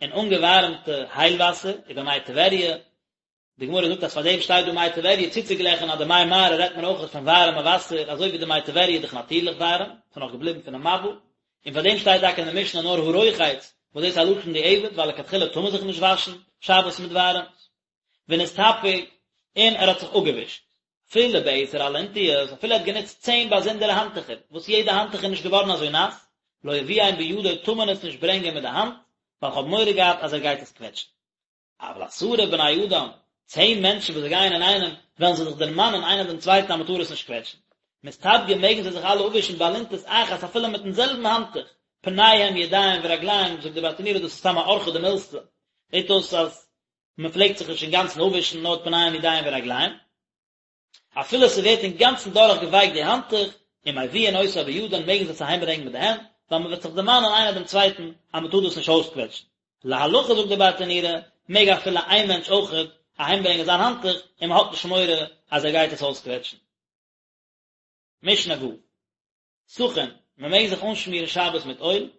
אין אנגעווארעמטע הייל וואסער ובמי טבריה, די גמרא זאגט אז פאר דעם שטייט דא מי טבריה צוצוגלעכן אז די מי מערה רעדט מען אויך פון ווארעמע וואסער אזוי ווי די מי טבריה איז דאך נאטירליך ווארעם, ס'איז נאך געבליבן פונעם מבול, און פאר דעם שטייט טאקע אין די משנה נאר הרוחץ וואס דאס איז א לשון דיעבד ווייל לכתחילה טאר מען זיך נישט וואשן שבת מיט ווארעמס. ונסתפג, און ער האט זיך אפגעווישט. אפילו בעשר אלונטיות, אפילו ער האט גענוצט צען באזונדערע האנטוכער, וואס יעדע האנטוך איז נישט געווארן אזוי נאס, לא יביאם בידו טאר מען עס נישט ברענגען מיט די האנט, ווייל כ'האב מורא געהאט אז ער גייט עס קוועטשן. אבל עשרה בני אדם, צען מענטשן וואס זיי גייען אינאיינעם, וועלן זיי זיך דערמאנען איינער דעם צווייטן אז מען טאר עס נישט קוועטשן. מסתפגין מעגן זיי זיך אלע אפווישן באלונטית אחת אפילו מיטן זעלבן האנטוך, פניהם ידיהם ורגליהם, זאגט די ברטנורא דאס איז סתם א אורחא דמילתא, זעט אויס אז מען פלעגט זיך נישט אינגאנצן אפווישן נאר פניהם ידיהם ורגליהם. אפילו ס'ווערט אינגאנצן דורך געווייקט די האנטוך, ומביאין אותה בידן מעגן זיי עס אהיים ברענגען מיט די הענט, ווייל מ'וועט זיך דערמאנען איינער דעם צווייטן אז מ'טאר דאס נישט אויסקוועטשן. להלכה זאגט די ברטנורא, מעג אפילו איין מענטש אויכעט אהיים ברענגען זיין האנטוך, און מ'האט נישט מורא אז ער גייט עס אויסקוועטשן. משנה ו'. סכין, מען מעג זיך אנשמירן שבת מיט אויל,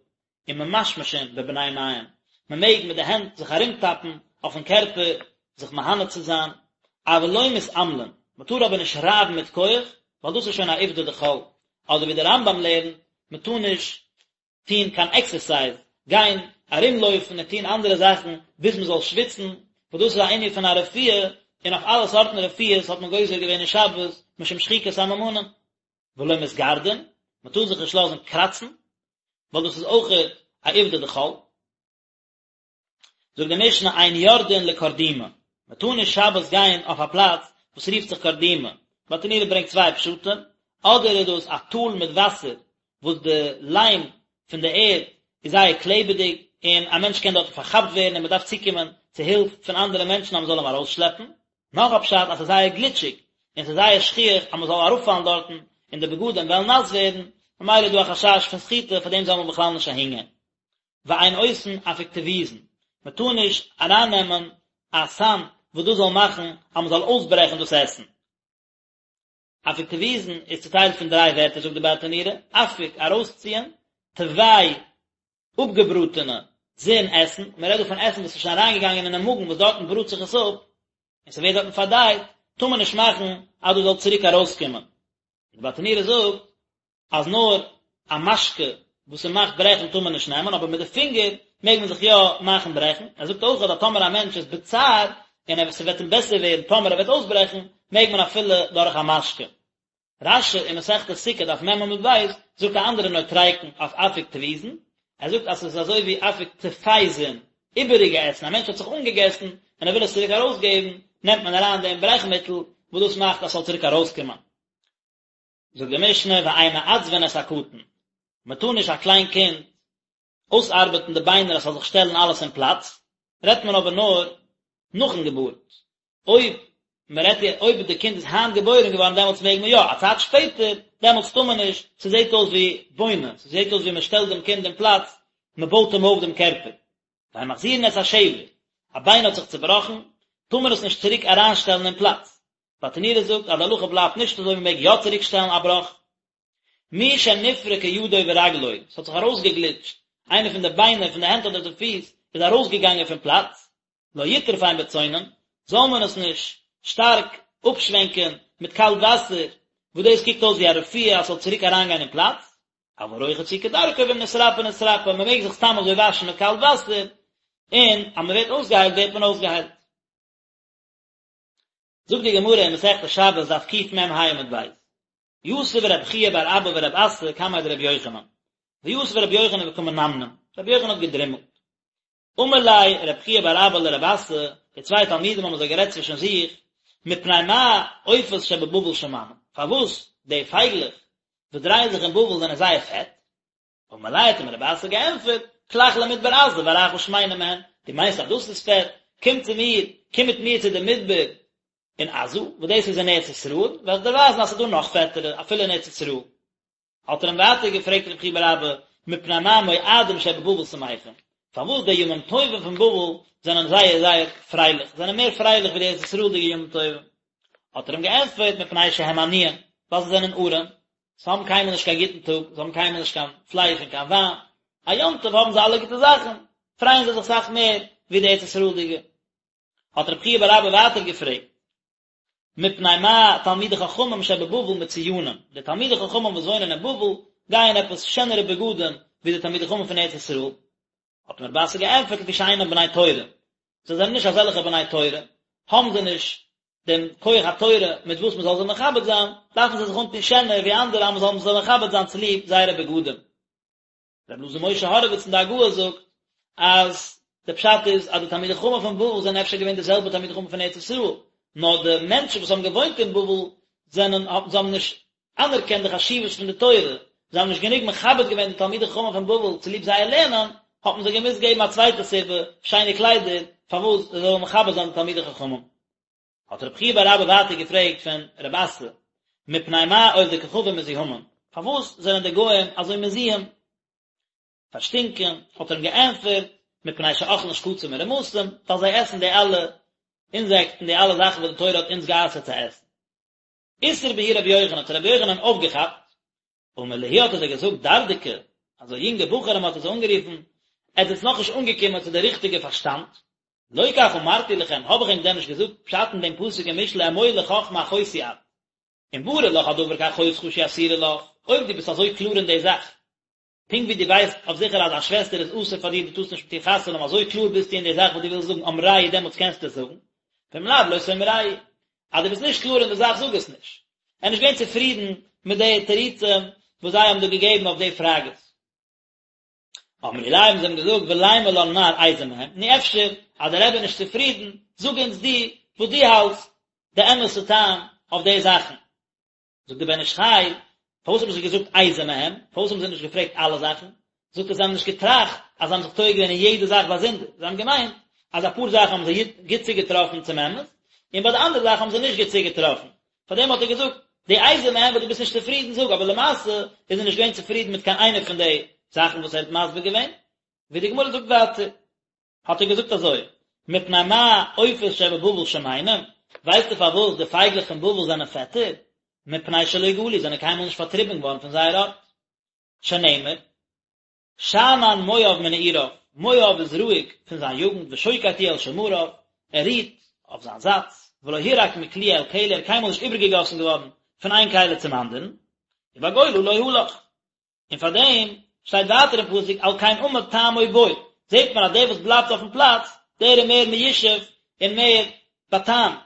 וממשמשין בבני מעיים, מען מעג מיט די הענט זיך ארומטאפן אויפן קערפער זיך מהנה צו זיין, אבל לא מתעמלין, מען טאר אבער נישט רייבן מיט כח, ווייל דאס איז שוין א עובדא דחול, אדער ווי דער רמב"ם לערנט, מען טאר נישט טון קיין עקסערסייז, גיין ארומלויפן און טון אנדערע זאכן ביז מען זאל שוויצן, וואס דאס איז א ענין פון א רפואה, און אויף אלע סארטן רפואות האט מען גוזר געווען אין שבת משום שחיקת סממנים. ולא מתגרדין, מען טאר זיך נישט לאזן קראצן, ווייל דאס איז אויכעט א עובדא דחול. זאגט די משנה אין יורדין לקרדימה, מען טאר נישט שבת גיין אויף א פלאץ וואס רופט זיך קרדימה, ברטנורא ברענגט צוויי פשטים, אדער איז דאס א טאל מיט וואסער וואס די ליים פון די ערד איז זייער קלעבעדיג און א מענטש קען דארטן פארכאפט ווערן און מען דארף צוקומען צו הילף פון אנדערע מענטשן אז מען זאל אים ארויסשלעפן, נאך א פשט אז ס'איז זייער גליטשיג און ס'איז זייער שכיח אז מ'זאל אראפפאלן דארטן און די בגדים וועלן נאס ווערן, ממילא איז דא א חשש פון סחיטה פאר דעם זאל מען בכלל נישט אהינגיין. ואין עושין אפיקטויזין, מ'טאר נישט ארייננעמען א סם וואס דאס זאל מאכן אז מ'זאל אויסברעכן דאס עסן. אפיקטויזין איז צוטיילט פון דריי ווערטער זאגט די ברטנורא, אפיק, ארויסציען, טווי, אפגעבראטענע, זין, עסן, מען רעדט דא פון עסן וואס איז שוין אריינגעגאנגען אינעם מאגן וואס דארטן בראט זיך עס אפ, און ס'ווערט דארטן פארדייט, טאר מען נישט מאכן אז דאס זאל צוריק ארויסקומען. די ברטנורא זאגט אז נאר א משקה וואס ס'מאכט ברעכן טאר מען נישט נעמען, אבער מיט די פינגער מעג מען זיך יא מאכן ברעכן, ער זאגט אויך אז טאמער א מענטש איז בצער און ער ס'וועט אים בעסער ווערן טאמער ער וועט אויסברעכן, מעג מען אפילו דורך א משקה. רש"י אין מסכת סוכה דף מ עמוד ב' זאגט א אנדערע נוטריקון אויף אפיקטויזין, ער זאגט אז ס'איז אזוי ווי אפיק טפייזין, איבעריגע עסן, א מענטש האט זיך אנגעגעסן און ער וויל עס צוריק ארויסגעבן, נעמט מען אריין דעם ברעכמיטל וואס דאס מאכט אז ס'זאל צוריק ארויסקומען. זאגט די משנה ואין מעצבין את הקטן, מען טאר נישט א קליין קינד אויסארבעטן די ביינער אז ס'זאל זיך שטעלן אלעס אין פלאץ, רעדט מען אבער נאר נאכן געבורט, אויב מען רעדט אויב די קינד איז היינט געבוירן געווארן דעמאלטס מעג מען יא, א צייט שפעטער דעמאלטס טאר מען נישט, ס'זעט אויס ווי בונה, ס'זעט אויס ווי מען שטעלט דעם קינד אין פלאץ, מען בויט אים אויף דעם קערפער. ואין מחזירין את השבר, א ביין האט זיך צובראכן, טאר מען עס נישט צוריק אריינשטעלן אין פלאץ, ברטנורא זאגט אז די הלכה בלייבט נישט אזוי מען מעג יא צוריק שטעלן א בראך. מי שנפרקה ידו ורגלו, עס האט זיך ארויסגעגליטשט איינע פון די ביינער פון די הענט אדער די פיס איז ארויסגעגאנגען פון פלאץ, לא יטרפם בצונן, זאל מען עס נישט שטארק אפשווענקען מיט קאלט וואסער, וואס דאס קוקט אויס ווי א רפואה אז ס'זאל צוריק אריינגיין אין פלאץ, אבל רוחץ הוא כדרכו ואם נתרפא נתרפא, מען מעג זיך סתם אזוי וואשן מיט קאלט וואסער, און אז מען ווערט אויסגעהיילט ווערט מען אויסגעהיילט. זאגט די גמרא אין מסכת שבת דף קמ"ה עמוד ב', יתיב רב חייא בר אבא ורב אסי קמיה דרבי יוחנן, ויתיב רבי יוחנן וקא מנמנם, רבי יוחנן האט געדרימלט. אמר ליה רב חייא בר אבא לרב אסי, די צוויי תלמידים האבן אזוי גערעדט צווישן זיך, מפני מה עופות שבבבל שמנים, פארוואס די פייגלעך וואס דרייען זיך אין בבל זענען זייער פעט? אמר ליה האט אים רב אסי געענטפערט, כלך למדבר עזה ואראך שמנה מהן, דו מיינסט אז דאס איז פעט, קום צו מיר, קום מיט מיר צו די מדבר אין עזה, וואס דאס איז אין ארץ ישראל, וועל איך דיר ווייזן אז ס'איז דא נאך פעטערע, אפילו אין ארץ ישראל. האט ער אים ווייטער געפרעגט רב חייא בר אבא, מפני מה מועדים שבבבל שמחים, פארוואס די ימים טובים פון בבל זענען זייער זייער פרייליך, זענען מער פרייליך ווי די ארץ ישראל'דיגע ימים טובים? האט ער אים געענטפערט, מפני שהם עניים, ווייל זיי זענען ארעם, זיי האבן קיינמאל נישט קיין גוטן טאג, זיי האבן קיינמאל נישט קיין פלייש און קיין וויין, א יום טוב האבן זיי אלע גוטע זאכן, פרייען זיי זיך אסאך מער ווי די ארץ ישראל'דיגע. האט רב חייא בר אבא ווייטער געפרעגט, מפני מה תלמידי חכמים שבבבל מצויינים, די תלמידי חכמים וואס וואוינען אין בבל גייען עפעס שענערע בגדים ווי די תלמידי חכמים פון ארץ ישראל? האט אים רב אסי געענטפערט לפי שאינם בני תורה, זיי זענען נישט אזעלכע בני תורה, האבן זיי נישט. דעם כח התורה מיט וואס מען זאל זיי מכבד זיין, דארפן זיי זיך אנטון שענער ווי אנדערע אז מען זאל זיי מכבד זיין צוליב זייערע בגדים. רבי אלעזר משה הורוויץ אין די הגהה זאגט אז די פשט איז אז די תלמידי חכמים פון בבל זענען אפשר געווען די זעלבע תלמידי חכמים פון ארץ ישראל, נאר די מענטשן וואס האבן געוואוינט אין בבל זענען זיי האבן נישט אנערקענט די חשיבות פון די תורה, זיי האבן נישט גענוג מכבד געווען די תלמידי חכמים פון בבל צוליב זייער לערנען, האט מען זיי געמוזט געבן א צווייטע סיבה, שיינע קליידער, פארוואס זיי זאלן מכבד זיין די תלמידי חכמים. האט רב חייא בר אבא ווייטער געפרעגט פון רב אסי, מפני מה עובדי כוכבים מזוהמין, פארוואס זענען די גוים אזוי מזוהם, פארשטינקען, האט ער אים געענטפערט, מפני שאוכלין שקצים ורמשים, ווייל זיי עסן די אלע אינזעקטן, די אלע זאכן וואס די תורה האט אונז גע'אסר'ט צו עסן. איתער בהו רבי יוחנן, האט רבי יוחנן אויפגעכאפט, אמר להו האט ער זיי געזאגט דרדקי, אזוי יונגע בחורים האט ער זיי אנגערופן, עטס זענטס נאכנישט אנגעקומען צו די ריכטיגע פארשטאנד, לא כך אמרתי לכם, האב איך ענק דען נישט געזאגט פשט אין דעם פסוק אין משלי אמור לחכמה אחותי את, אם ברור לך הדבר כאחותך שהיא אסורה לך, אויב דו ביסט אזוי קלאר אין די זאך, פונקט ווי דו ווייסט אויף זיכער אז א שוועסטער איז אסור פאר דיר דו טארסט נישט מיט איר חתונה האבן אזוי קלאר ביסטו אין די זאך וואס דו ווילסט זאגן אמרהו דעמאלטס קענסטו עס זאגן, ואם לאו לא תאמרהו, אז דו ביסט נישט קלאר אין די זאך זאג עס נישט. ער איז נישט געווען צופרידן מיט די תירוצים וואס זיי האבן דא געגעבן אויף די פראגעס. אמרו ליה האבן זיי אים געזאגט ולימא לן מר איזה מהם, נו אפשר אז דער רבי איז נישט צופרידן, זאג אונז דו וואס דו האלטסט די אמת'ע טעם אויף די זאכן. זאגט דער בן איש חי, פארוואס האבן זיי געזאגט איזה מהם? פארוואס האבן זיי נישט געפרעגט אלע זאכן? זאגט ער זיי האבן נישט געטראכט אז זיי האבן זיך טועה געווען אין יעדע זאך באזונדער, זיי האבן געמיינט אז אפאר זאכן האבן זיי גוט צוגעטראפן צום אמת, און ביי די אנדערע זאכן האבן זיי נישט גוט צוגעטראפן, פארדעם האט ער געזאגט, די איזה מהם וואס דו ביסט נישט צופרידן זאג, אבער למעשה איז ער נישט געווען צופרידן מיט קיין איינע פון די זאכן וואס ער האט מסביר געווען, ווי די גמרא זאגט ווייטער. האט ער געזאגט אזוי, מפני מה עופות שבבבל שמנים, ווייסטו פארוואס די פייגלעך פון בבל זענען פעטער? מפני שלא גלו, זענען קיינמאל נישט פארטריבן געווארן פון זייער ארט. שנאמר, שאנן מואב מנעוריו, מואב איז רואיג פון זיין יוגנט, ושוקט הוא על שמריו, ער רוהט אויף זיין זאטס, ולא הורק מכלי אל כלי, ער איז קיינמאל נישט איבערגעגאסן געווארן פון איין כלי צום אנדערן, ובגולה לא הלך. און פאר דעם שטייט ווייטער אין פסוק על כן עמד טעמו בו, זעט מען אז דער וואס בלייבט אויפן פלאץ, דער איז מער מיושב און מער באטעמט,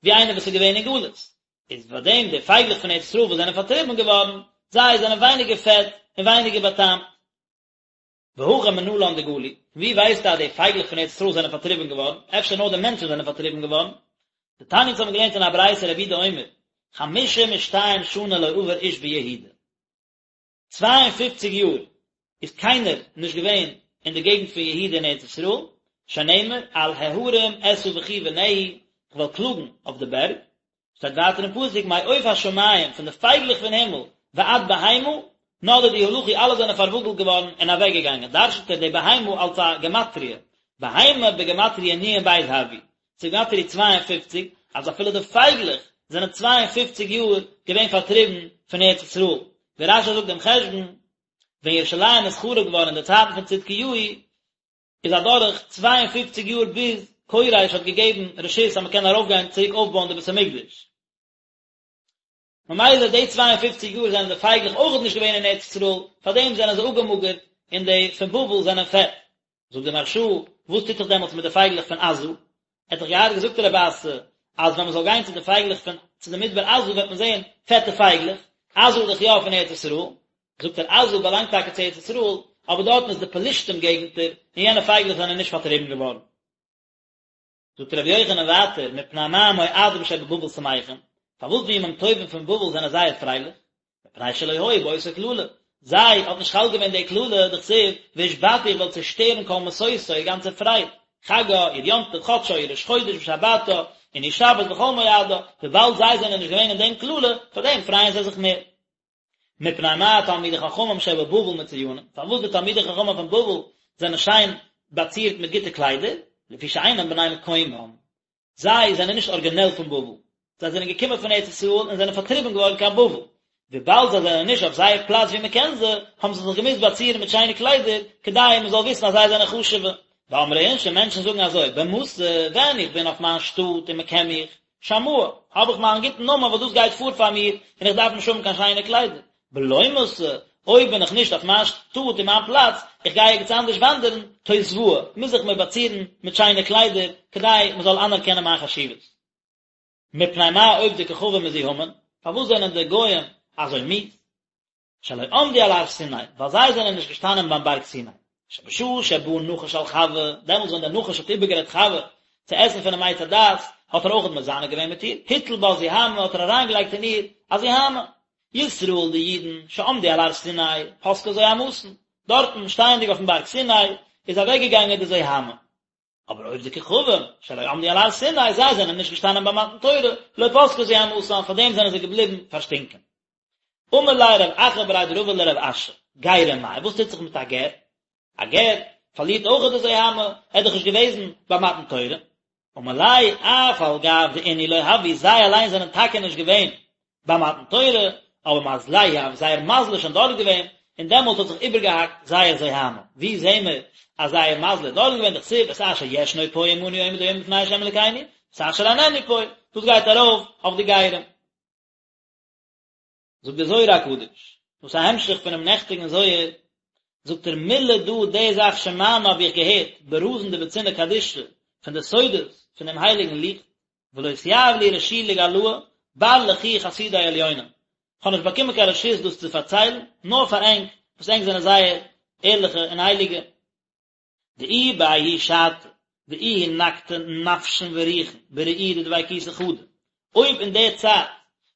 ווי איינער וואס איז געווען אין גלות. איז פאר דעם די פייגלעך פון ארץ ישראל וואס זענען פארטריבן געווארן, זיי זענען ווייניגער פעט און ווייניגער באטעמט. והכא מנלן דגלו, פון ווי ווייסטו אז די פייגלעך פון ארץ ישראל זענען פארטריבן געווארן? אפשר נאר די מענטשן זענען פארטריבן געווארן? דתניא אונז האבן געלערנט אין א ברייתא רבי יהודה אומר, חמשים ושתיים שנה לא עבר איש ביהודה. 52 יאר איז קיינער נישט געווען אין די געגנט פון יהודה אין ארץ ישראל, שנאמר על ההרים אשא בכי ונהי, איך וועל קלאגן אויף די בערג, שטייט ווייטער אין פסוק מעוף השמים, פון די פייגלעך פון הימל, ועד בהמה, נדדו הלכו אלע זענען פארוואגלט געווארן און אוועק געגאנגען, דרש'נט ער די בהמה אלס א גמטריא, בהמה בגמטריא נ"ב הויא, ס'איז גמטריא 52, אז אפילו די פייגלעך זענען 52 יאר געווען פארטריבן פון ארץ ישראל, ווי רש"י זאגט דעם חשבון, ווען ירושלים איז חרוב געווארן אין די צייטן פון צדקיהו, איז אדורך 52 יאר ביז כורש האט געגעבן רשות אז מען קען ארויפגיין צוריק אויפבויען די בית המקדש. ממילא די 52 יאר זענען די פייגלעך אויכעט נישט געווען אין ארץ ישראל, פארדעם זענען זיי אפגעמאגערט און די פון בבל זענען פעט. זאגט די מהרש"א, וואס טוט זיך דעמאלטס מיט די פייגלעך פון עזה? ער האט דאך געהאט געזאגט רב אסי, אז ווען מען זאל גיין צו די פייגלעך פון צו די מדבר עזה וועט מען זען פעטע פייגלעך, עזה איז דאך יא פון ארץ ישראל, זאגט ער עזה באלאנגט טאקע צו ארץ ישראל, אבער דארטן איז די פלישתים געגנטער, און יענע פייגלעך זענען נישט פארטריבן געווארן. זאגט רבי יוחנן ווייטער, מפני מה מועדים שבבבל שמחים, פארוואס די ימים טובים פון בבל זענען זייער פרייליך? מפני שלא היו באותה קללה, זיי האט נישט חל געווען די קללה, דכתיב, והשבתי איך וועל צעשטערן כל משושה, איר גאנצע פרייד, חגה, איר יום טוב, חדשה, איר ראש חודש ושבתה, און איר שבת וכל מועדה, וויבאלד זיי זענען נישט געווען אין דעם קללה, פאר דעם פרייען זיי זיך מער. מפני מה תלמידי חכמים שבבבל מצויינים, פארוואס די תלמידי חכמים פון בבל זענען שיין באצירט מיט גוטע קליידער, לפי שאינם בני מקומם, זיי זענען נישט ארגינעל פון בבל, זיי זענען געקומען פון ארץ ישראל און זענען פארטריבן געווארן קיין בבל, וויבאלד זיי זענען נישט אויף זייער פלאץ ווי מען קען זיי, האבן זיי זיך געמוזט באצירן מיט שיינע קליידער, כדי מען זאל וויסן אז זיי זענען חשוב'ע. ואמרי אינשי, מענטשן זאגן אזוי, במתא, ווען איך בין אויף מיין שטאט און מען קען מיך, שמאי, האב איך מיין גוטן נאמען וואס דאס גייט פאר פאר מיר, און איך דארף נישט האבן קיין שיינע קליידער. בלא מתא, אויב בין איך נישט אויף מיין שטאט און מיין פלאץ, איך גיי ערגעץ אנדערש וואנדערן, תותבאי, מוז איך מיר באצירן מיט שיינע קליידער, כדי מען זאל אנערקענען מיין חשיבות. מפני מה עובדי כוכבים מזוהמין, פארוואס זענען די גוים אזוי מיאוס? שלא עמדו על הר סיני, ווייל זיי זענען נישט געשטאנען ביים בארג סיני. שבשעה שבא נחש על חווה, דעמאלטס ווען דער נחש האט איבערגערעדט חווה צו עסן פונעם עץ הדעת, האט ער אויך מזנה געווען מיט איר, הטיל בה זוהמא האט ער אריינגעלייגט אין איר א זוהמא. ישראל די אידן, שעמדו על הר סיני, פסקה זוהמתן, דארטן, שטייענדיג אויפן בארג סיני, איז אוועקגעגאנגען די זוהמא. אבער עובדי כוכבים, שלא עמדו על הר סיני, זיי זענען נישט געשטאנען ביי מתן תורה, לא פסקה זוהמתן, פאר דעם זענען זיי געבליבן פארשטינקען. אמר ליה רב אחא בריה דרבא לרב אשי, גירים מאי, וואס טוט זיך מיט א גר? א גר פארלירט אויך די זוהמא, ער איז דאך נישט געוועזן ביי מתן תורה. אמר ליה, אף על גב דאינהו לא הוו, זיי אליין זענען טאקע נישט געווען ביי מתן תורה, אבער מזלייהו הוה, זייער מזל איז שוין דארט געווען, און דעמאלט האט זיך איבערגעהאקט זייער זוהמא. ווי זעהן מיר אז זייער מזל איז דארט געווען, דכתיב את אשר ישנו פה עמנו עומד היום לפני ה' אלקינו, ואת אשר איננו פה, דאס גייט ארויף אויף די גרים. זאגט דער זוהר הקדוש, דאס איז א המשך פונעם נעכטיגן זוהר, זאגט ער מלה דא די זאך שמענא האב איך געהערט ברזין דבוצינא קדישא פון די סודות פון דעם הייליגן ליכט, ולא אתיהיב לי רשו לגלאה בר לכו חסידי עליונים, כ'האב נישט באקומען קיין רשות דאס צו פארציילן, נאר פאר ענק, וואס ענק זענען זייער ערליכע און הייליגע. דאי בההיא שעתא דאיהו נקטי נפשין ורוחין בראי' דדביקותא חדא, אויב אין די צייט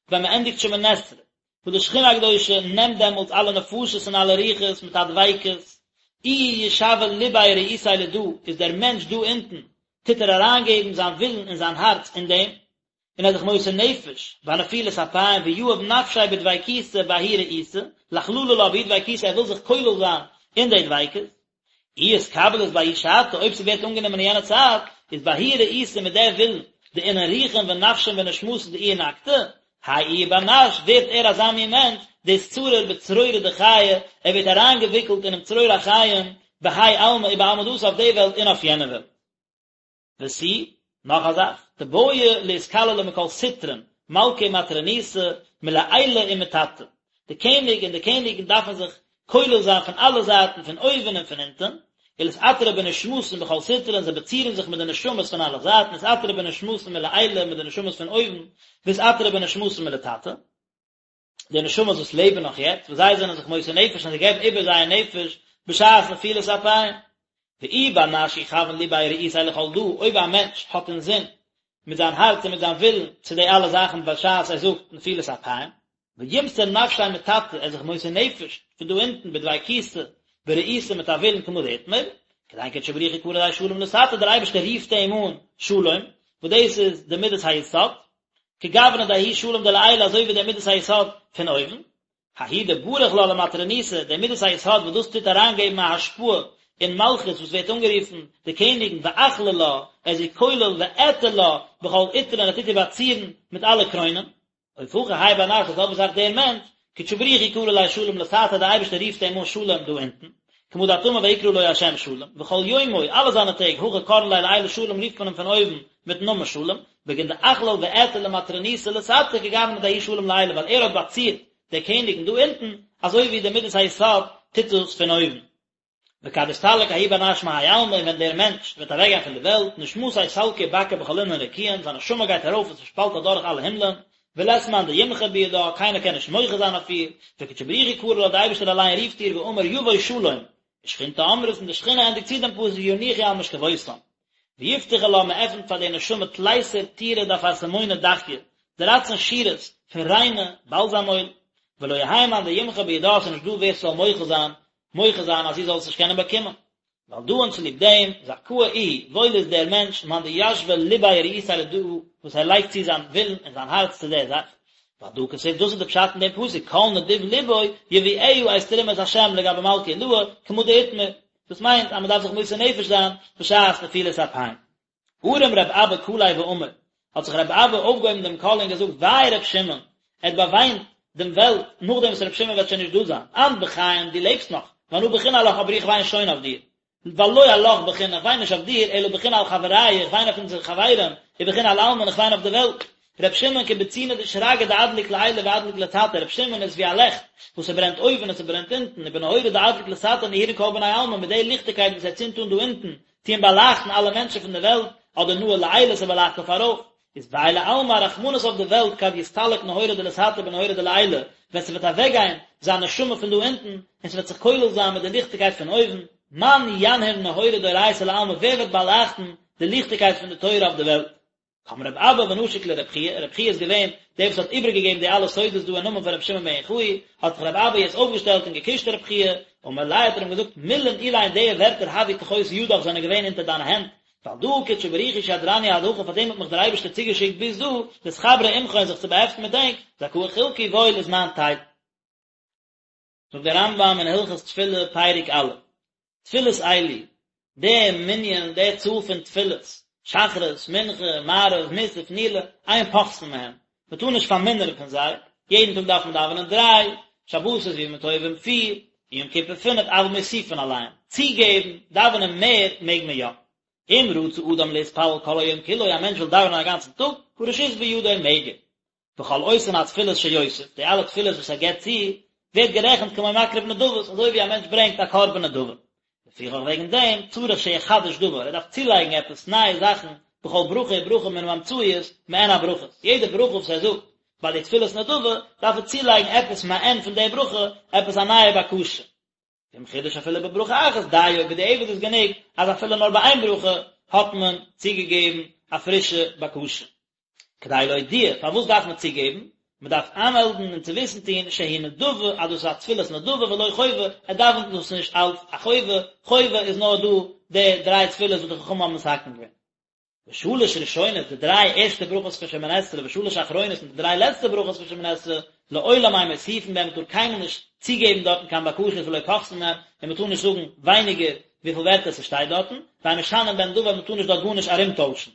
ווען מען ענדיגט שמונה עשרה, וואס די שכינה הקדושה נעמט דעמאלטס אלע נפשות און אלע רוחות מיט א דביקות, איהו ישוי לביה ורעותיה לדא, איז דער מענטש דא אונטן, טוט ער אריינגעבן זיין ווילן און זיין הארץ אין דעם, און ער איז זיך מוסר נפש בנפילת אפיים ויהב נפשיה בדביקותא בההיא רעותא, לאכללא לה בההיא דביקותא ער וויל זיך כולל זיין אין די דביקות, אי אתקבלת בההיא שעתא אויב ס'ווערט אנגענומען אין יענע צייט, איז בההיא רעותא מיט די ווילן, דאינון רוחין ונפשין ונשמתין דאיהו נקטי, האי איהו בר נש ווערט ער אזא מין מענטש, דאתצריר בצרורא דחיי, ער ווערט אריינגעוויקלט אינעם צרור החיים, בהאי עלמא ובעלמא דאתי אויף די וועלט און אויף יענע וועלט. ותו, נאך א זאך, דבעי לאתכללא מכל סטרין, מלכא ומטרוניתא, מלעילא ומתתא. די קעניג און די קעניגן דארפן זיך כולל זיין פון אלע זייטן, פון אויבן און פון אונטן, ולאתעטרא בנשמתין בכל סטרין, זיי באצירן זיך מיט די נשמות פון אלע זייטן, אתעטרא בנשמתין מלעילא מיט די נשמות פון אויבן, ואתעטרא בנשמתין מלתתא. די נשמות וואס לעבן נאך יעצט, וואס זיי זענען זיך מוסר נפש און זיי געבן איבער זייער נפש בשעת נפילת אפיים. ואי בר נש יכוין לביה ורעותיה לכל דא, אויב א מענטש האט אינזין מיט זיין הארץ און מיט זיין ווילן צו די אלע זאכן בשעת ער זאגט נפילת אפיים, וימסור נפשיה מתתא, ער איז זיך מוסר נפש פון דא אונטן בדביקותא ברעותא מיט א ווילן כמה דאתמר, כדין קודשא בריך הוא קרי ליה שלום לתתא, דער אייבערשטער רופט אים אן שלום, וואס דאס איז די מידת היסוד, כגוונא דההוא שלום דלעילא אזוי ווי דער מידת היסוד פון אויבן, ההוא דבריך לה למטרוניתא, דער מידת היסוד וואס דאס טוט אריינגעבן א השפעה אין מלכות וואס ווערט אנגערופן די קעניגן ואכליל לה, ער איז איר כולל ואעטר לה בכל עטרין ער טוט איר באצירן מיט אלע קרוינען. אוף הכי האי בר נש די זעלבע זאך דער מענטש, קודשא בריך הוא קרי ליה שלום לתתא דער אייבערשטער רופט אים אן שלום דא אונטן, כמה דאת אמר ויקרא לו השם שלום, וכל יומוי, אלע זיינע טעג, הכי קראן ליה לעילא שלום רופט מען אים פון אויבן מיטן נאמען שלום, בגין דאכליל ואעטר למטרוניתא לתתא כגוונא דההוא שלום לעילא ווייל ער האט באצירט די קעניגן דא אונטן, אזוי ווי די מידת היסוד טוט דאס פון אויבן. וכד אסתלק ההוא בר נש מהאי עלמא און ווען דער מענטש וועט אוועקגיין פון די וועלט, נשמתיה סלקא ובקעה בכל אינון רקיעין, זיין נשמה גייט ארויף און ס'שפאלט אדורך אלע הימלען, ולית מאן דימחי בידה, קיינער קען נישט מוחה זיין אויף איר, וקודשא בריך הוא קרי לה, דער אייבערשטער אליין רופט איר ואמר יבוא שלום, ושכינתא אמרת און די שכינה ענדיגט צו דעם פסוק ינוחו על משכבותם. ויפתחו לה, מען עפנט פאר די נשמה תליסר טורי דאפרסמונא דכיא, דרייצן שורות פון ריינע באלזאם אויל, ולא יהא מאן דימחי בידה, ס'איז נישט דא ווער ס'זאל מוחל זיין, מוחה זיין אז זי זאל עס נישט קענען באקומען. ועל דא און צוליב דעם, זכאה איהו, וואויל איז דער מענטש, מאן דישוי לביה ורעותיה לדא, וואס ער לייגט צו זיין ווילן און זיין הארץ צו דער זאך. ועל דא כתיב, דאס איז די פשט אין דעם פסוק, כל נדיב לבו יביאה את תרומת השם לגבי מלכא עילאה, כמה דאתמר. דאס מיינט אז מען דארף זיך מוסר נפש זיין בשעת נפילת אפיים. ארים רב אבא קליה ואמר, האט זיך רב אבא אויפגעהויבן דעם קול און געזאגט, וויי רב שמעון, ער האט באוויינט דעם וועלט נאכדעם וואס רב שמעון וועט שוין נישט דא זיין, אנת בכיין, דו לעבסט נאך, ואנא בכינא עלך אבער איך וויין שוין אויף דיר, ווייל לא עלך בכינא, איך וויין נישט אויף דיר, אלא בכינא על חברייא, איך וויין אויף אונזערע חברים, ובכינא על עלמין, איך וויין אויף די וועלט. ר' שמעון כבוצינא דשרגא דאדליק לעילא ואדליק לתתא, ר' שמעון איז ווי א לעכט וואס ס'ברענט אויבן און ס'ברענט אונטן, ובנהורא דאדליק לתתא נהירין כל בני עלמא, מיט די ליכטיגקייט וואס ער צינדט אן דא אונטן, טוען באלייכטן אלע מענטשן פון די וועלט, אדער נהיר לעילא ס'באלייכט אויף ארויף. איז וויי לעלמא א רחמנות אויף די וועלט כד יסתלק נהורא דלתתא בנהורא דלעילא, ווען ס'וועט אוועקגיין זיין נשמה פון דא אונטן, און ס'וועט זיך כולל זיין מיט די ליכטיגקייט פון אויבן, מאן ינהיר נהורא דאורייתא לעלמא ווער וועט באלייכטן די ליכטיגקייט פון די תורה אויף די וועלט? קם רב אבא ונשק לרב חייא, רב חייא איז געווען דער וואס האט איבערגעגעבן די אלע סודות דא אין נאמען פון רבי שמעון בן יוחאי, האט זיך רב אבא יעצט אויפגעשטעלט און געקושט רב חייא, אמר ליה האט ער אים געזאגט, מילין אלין די ווערטער הוו תחות ידך זענען געווען אונטער דיינע הענט, ועל דא קודשא בריך הוא שדרני עד הכא פאר דעם האט מיך דער אייבערשטער צוגעשיקט ביז דא, לאתחברא עמכון זיך צו באהעפטן מיט ענק, זכאה חולקי וואויל איז מיין טייל. זאגט דער רמב"ם אין הלכות תפילה פרק א', תפילות אלו, די מנין, די צאל פון תפילות, שחרית, מנחה, מעריב, מוסף, נעילה, אין פוחתין מהם, מען טאר נישט פארמינערן פון זיי, יעדן טאג דארף מען דאווענען דריי, שבתות וימים טובים פיר, און יום כיפור פינף, אבל מוסיפין עליהם, צוגעבן, דאווענען מער, מעג מען יא. אם רצה אדם להתפלל כל היום כולו, א מענטש וויל דאווענען א גאנצן טאג, הרשות בידו מעג ער. וכל אותן התפילות שיוסיף, די אלע תפילות וואס ער געבט צו, ווערט גערעכנט כמו מקריב נדבות, אזוי ווי א מענטש ברענגט א קרבן נדבה. לפיכך וועגן דעם, צריך שיחדש דבר, ער דארף צולייגן עפעס נייע זאכן, בכל ברכה וברכה מן האמצעיות, מעין הברכות, יעדע ברכה וואס ער זאגט ביי די תפילת נדבה, דארף ער צולייגן עפעס מעין פון די ברכה, עפעס א נייע בקשה. ואם חידש אפילו בברכה אחת דיו, בדיעבד איז גענוג אז אפילו נאר ביי איין ברכה האט מען צוגעגעבן א פרישע בקשה. כדי להודיע, פארוואס דארף מען צוגעבן? מען דארף איינמעלדן און צו וויסן טון שהיא נדבה אז דאס איז א תפילת נדבה ולא חובה, ער דאווענט דאס נישט אלץ א חובה, חובה איז נאר דא די דריי תפילות וואס די חכמים האבן מתקן געווען. ושלש ראשונות, די דריי ערשטע ברכות פון שמונה עשרה, ושלש אחרונות, און די דריי לעצטע ברכות פון שמונה עשרה, לעולם אין מוסיפין בהן, מען טאר קיינמאל נישט צוגעבן דארטן קיין בקשות ולא פוחתין מהן, און מען טאר נישט זאגן ווייניגער וויפיל ווערטער ס'שטייט דארטן, ואין משנין בהן דבר, מען טאר נישט דארט גארנישט ארומטוישן.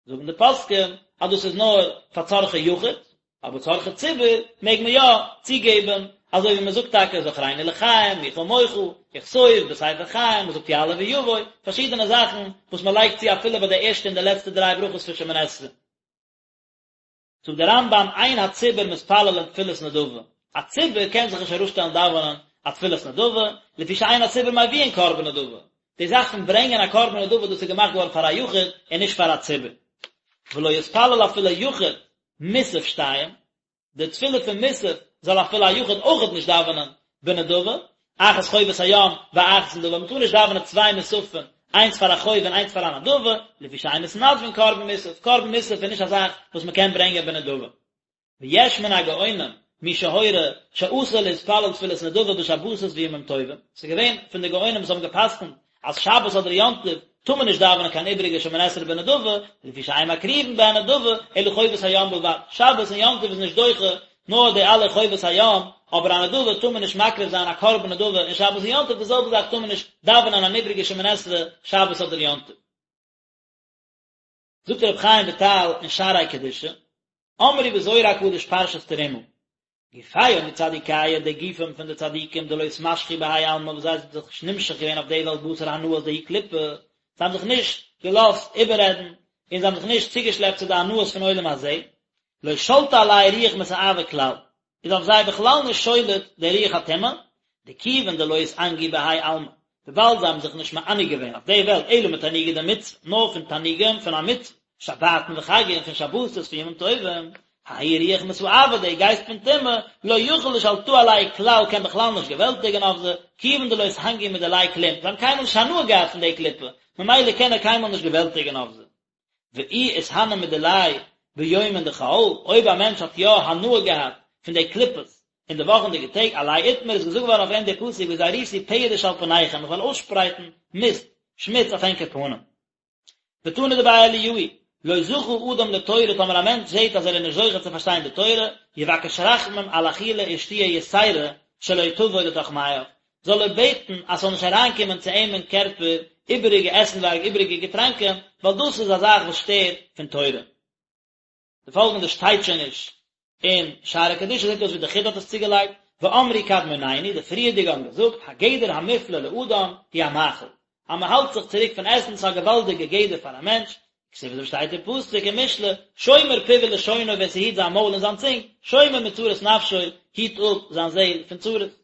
זאגן די פוסקים אז דאס איז נאר פאר צרכי יחיד, אבער צרכי ציבור מעג מען יא צוגעבן, אזוי ווי מען זאגט טאקע זכרנו לחיים, מי כמוך, וכתוב בספר חיים, מען זאגט יעלה ויבוא, פארשידענע זאכן וואס מען לייגט צו אפילו ביי די ערשטע און די לעצטע דריי ברכות פון שמונה עשרה. זאגט דער רמב"ם אין הציבור מתפללין תפילת נדבה, א ציבור קען זיך נישט אראפשטעלן דאווענען א תפילת נדבה, לפי שאין הציבור מביאין קרבן נדבה, די זאך פון ברענגען א קרבן נדבה דאס איז געמאכט געווארן פאר א יחיד און נישט פאר א ציבור. ולא יתפלל אפילו יחיד מוסף שתיים, די תפילה פון מוסף זאל אפילו א יחיד אויכעט נישט דאווענען בנדבה, אחת חובת הים ואחת נדבה, מען טאר נישט דאווענען צוויי מוספים, איינס פאר א חוב און איינס פאר א נדבה, לפי שאין מתנדבין קרבן מוסף, קרבן מוסף איז נישט א זאך וואס מען קען ברענגען בנדבה. ויש מן הגאונים מי שהורה שאסור להתפלל תפילת נדבה בשבתות וימים טובים, ס'איז געווען פון די גאונים וואס האבן גע'פסק'נט אז שבת אדער יום טוב טאר מען נישט דאווענען קיין איבעריגע שמונה עשרה בנדבה, לפי שאין מקריבין בהן נדבה אלא חובת הים בלבד, שבת און יום טוב איז נישט דוחה נאר די אלע חובת הים, אבער א נדבה טאר מען נישט מקריב זיין א קרבן נדבה אין שבת און יום טוב, די זעלבע זאך טאר מען נישט דאווענען אן איבעריגע שמונה עשרה שבת אדער יום טוב. זאגט רבי חיים וויטאל אין שערי קדושה, אמרו בזוהר הקדוש פרשת תרומה, גופייהו מצדיקיא די גופים פון די צדיקים דלא אתמשכו בהאי עלמא וואס זיי זענען זיך נישט נמשך געווען אויף די וועלט בתר הנאות דהאי קליפה, זיי האבן זיך נישט געלאזט איבעררעדן און זיי האבן זיך נישט צוגעשלעפט צו די הנאות פון עולם הזה, לא שלטא עלייהו רוח מסאבא כלל, איז אויף זיי בכלל נישט שולט דער רוח הטומאה, דכיון דלא אתענגו בהאי עלמא, וויבאלד זיי האבן זיך נישט מענג געווען אויף די וועלט אלא מתענוגי דמצוה, נאר פון תענוגים פון א מצוה, שבתין וחגין, פון שבתות, פון ימים טובים, ההוא רוח מסאבא, דער גייסט פון טומאה, לא יכיל לשלטאה עלייהו כלל קען בכלל נישט געוועלטיגן אויף זיי, כיוון דלא אתענגו מדיליה כלום, זיי האבן קיינמאל נישט הנאה געהאט פון די קליפה, ממילא קען ער קיינמאל נישט געוועלטיגן אויף זיי. ואי אתהני מדיליה ביומין דחול, אויב א מענטש האט יא הנאה געהאט פון די קליפות אין די וואכענדיגע טעג, עליה אתמר איז געזאגט געווארן אויף אים די פסוק וזריתי פרש על פניכם איך וועל אויסשפרייטן מיסט, שמוץ אויף ענקער פנים. ותנא דבי אליהו, לא זכה אדם לתורה טאמער א מענטש זעט אז ער איז נישט זוכה צו פארשטיין די תורה, יבקש רחמים על אכילה ושתיה יתירה שלא תבוא לתוך מעיו, זאל ער בעטן אז ס'זאל נישט אריינקומען צו אים אין קערפער איבעריגע עסנווארג איבעריגע געטראנקען, ווייל דאס איז א זאך וואס שטערט פון תורה. די פאלגענדע שטייט שוין נישט אין שערי קדושה, זעט אויס ווי די חיד"א האט עס צוגעלייגט, ואמרו קדמונינו, די פריערדיגע האבן געזאגט, הגדר המופלא לאדם הוא המאכל, אז מען האלט זיך צוריק פון עסן ס'איז א געוואלדיגע גדר פאר א מענטש, כתיב אזוי שטייט אין פסוק אין משלי, שומר פיו ולשונו ווער ס'היט זיין מויל און זיין צונג, שומר מצרות נפשו, היט אפ זיין זעהל פון צרות.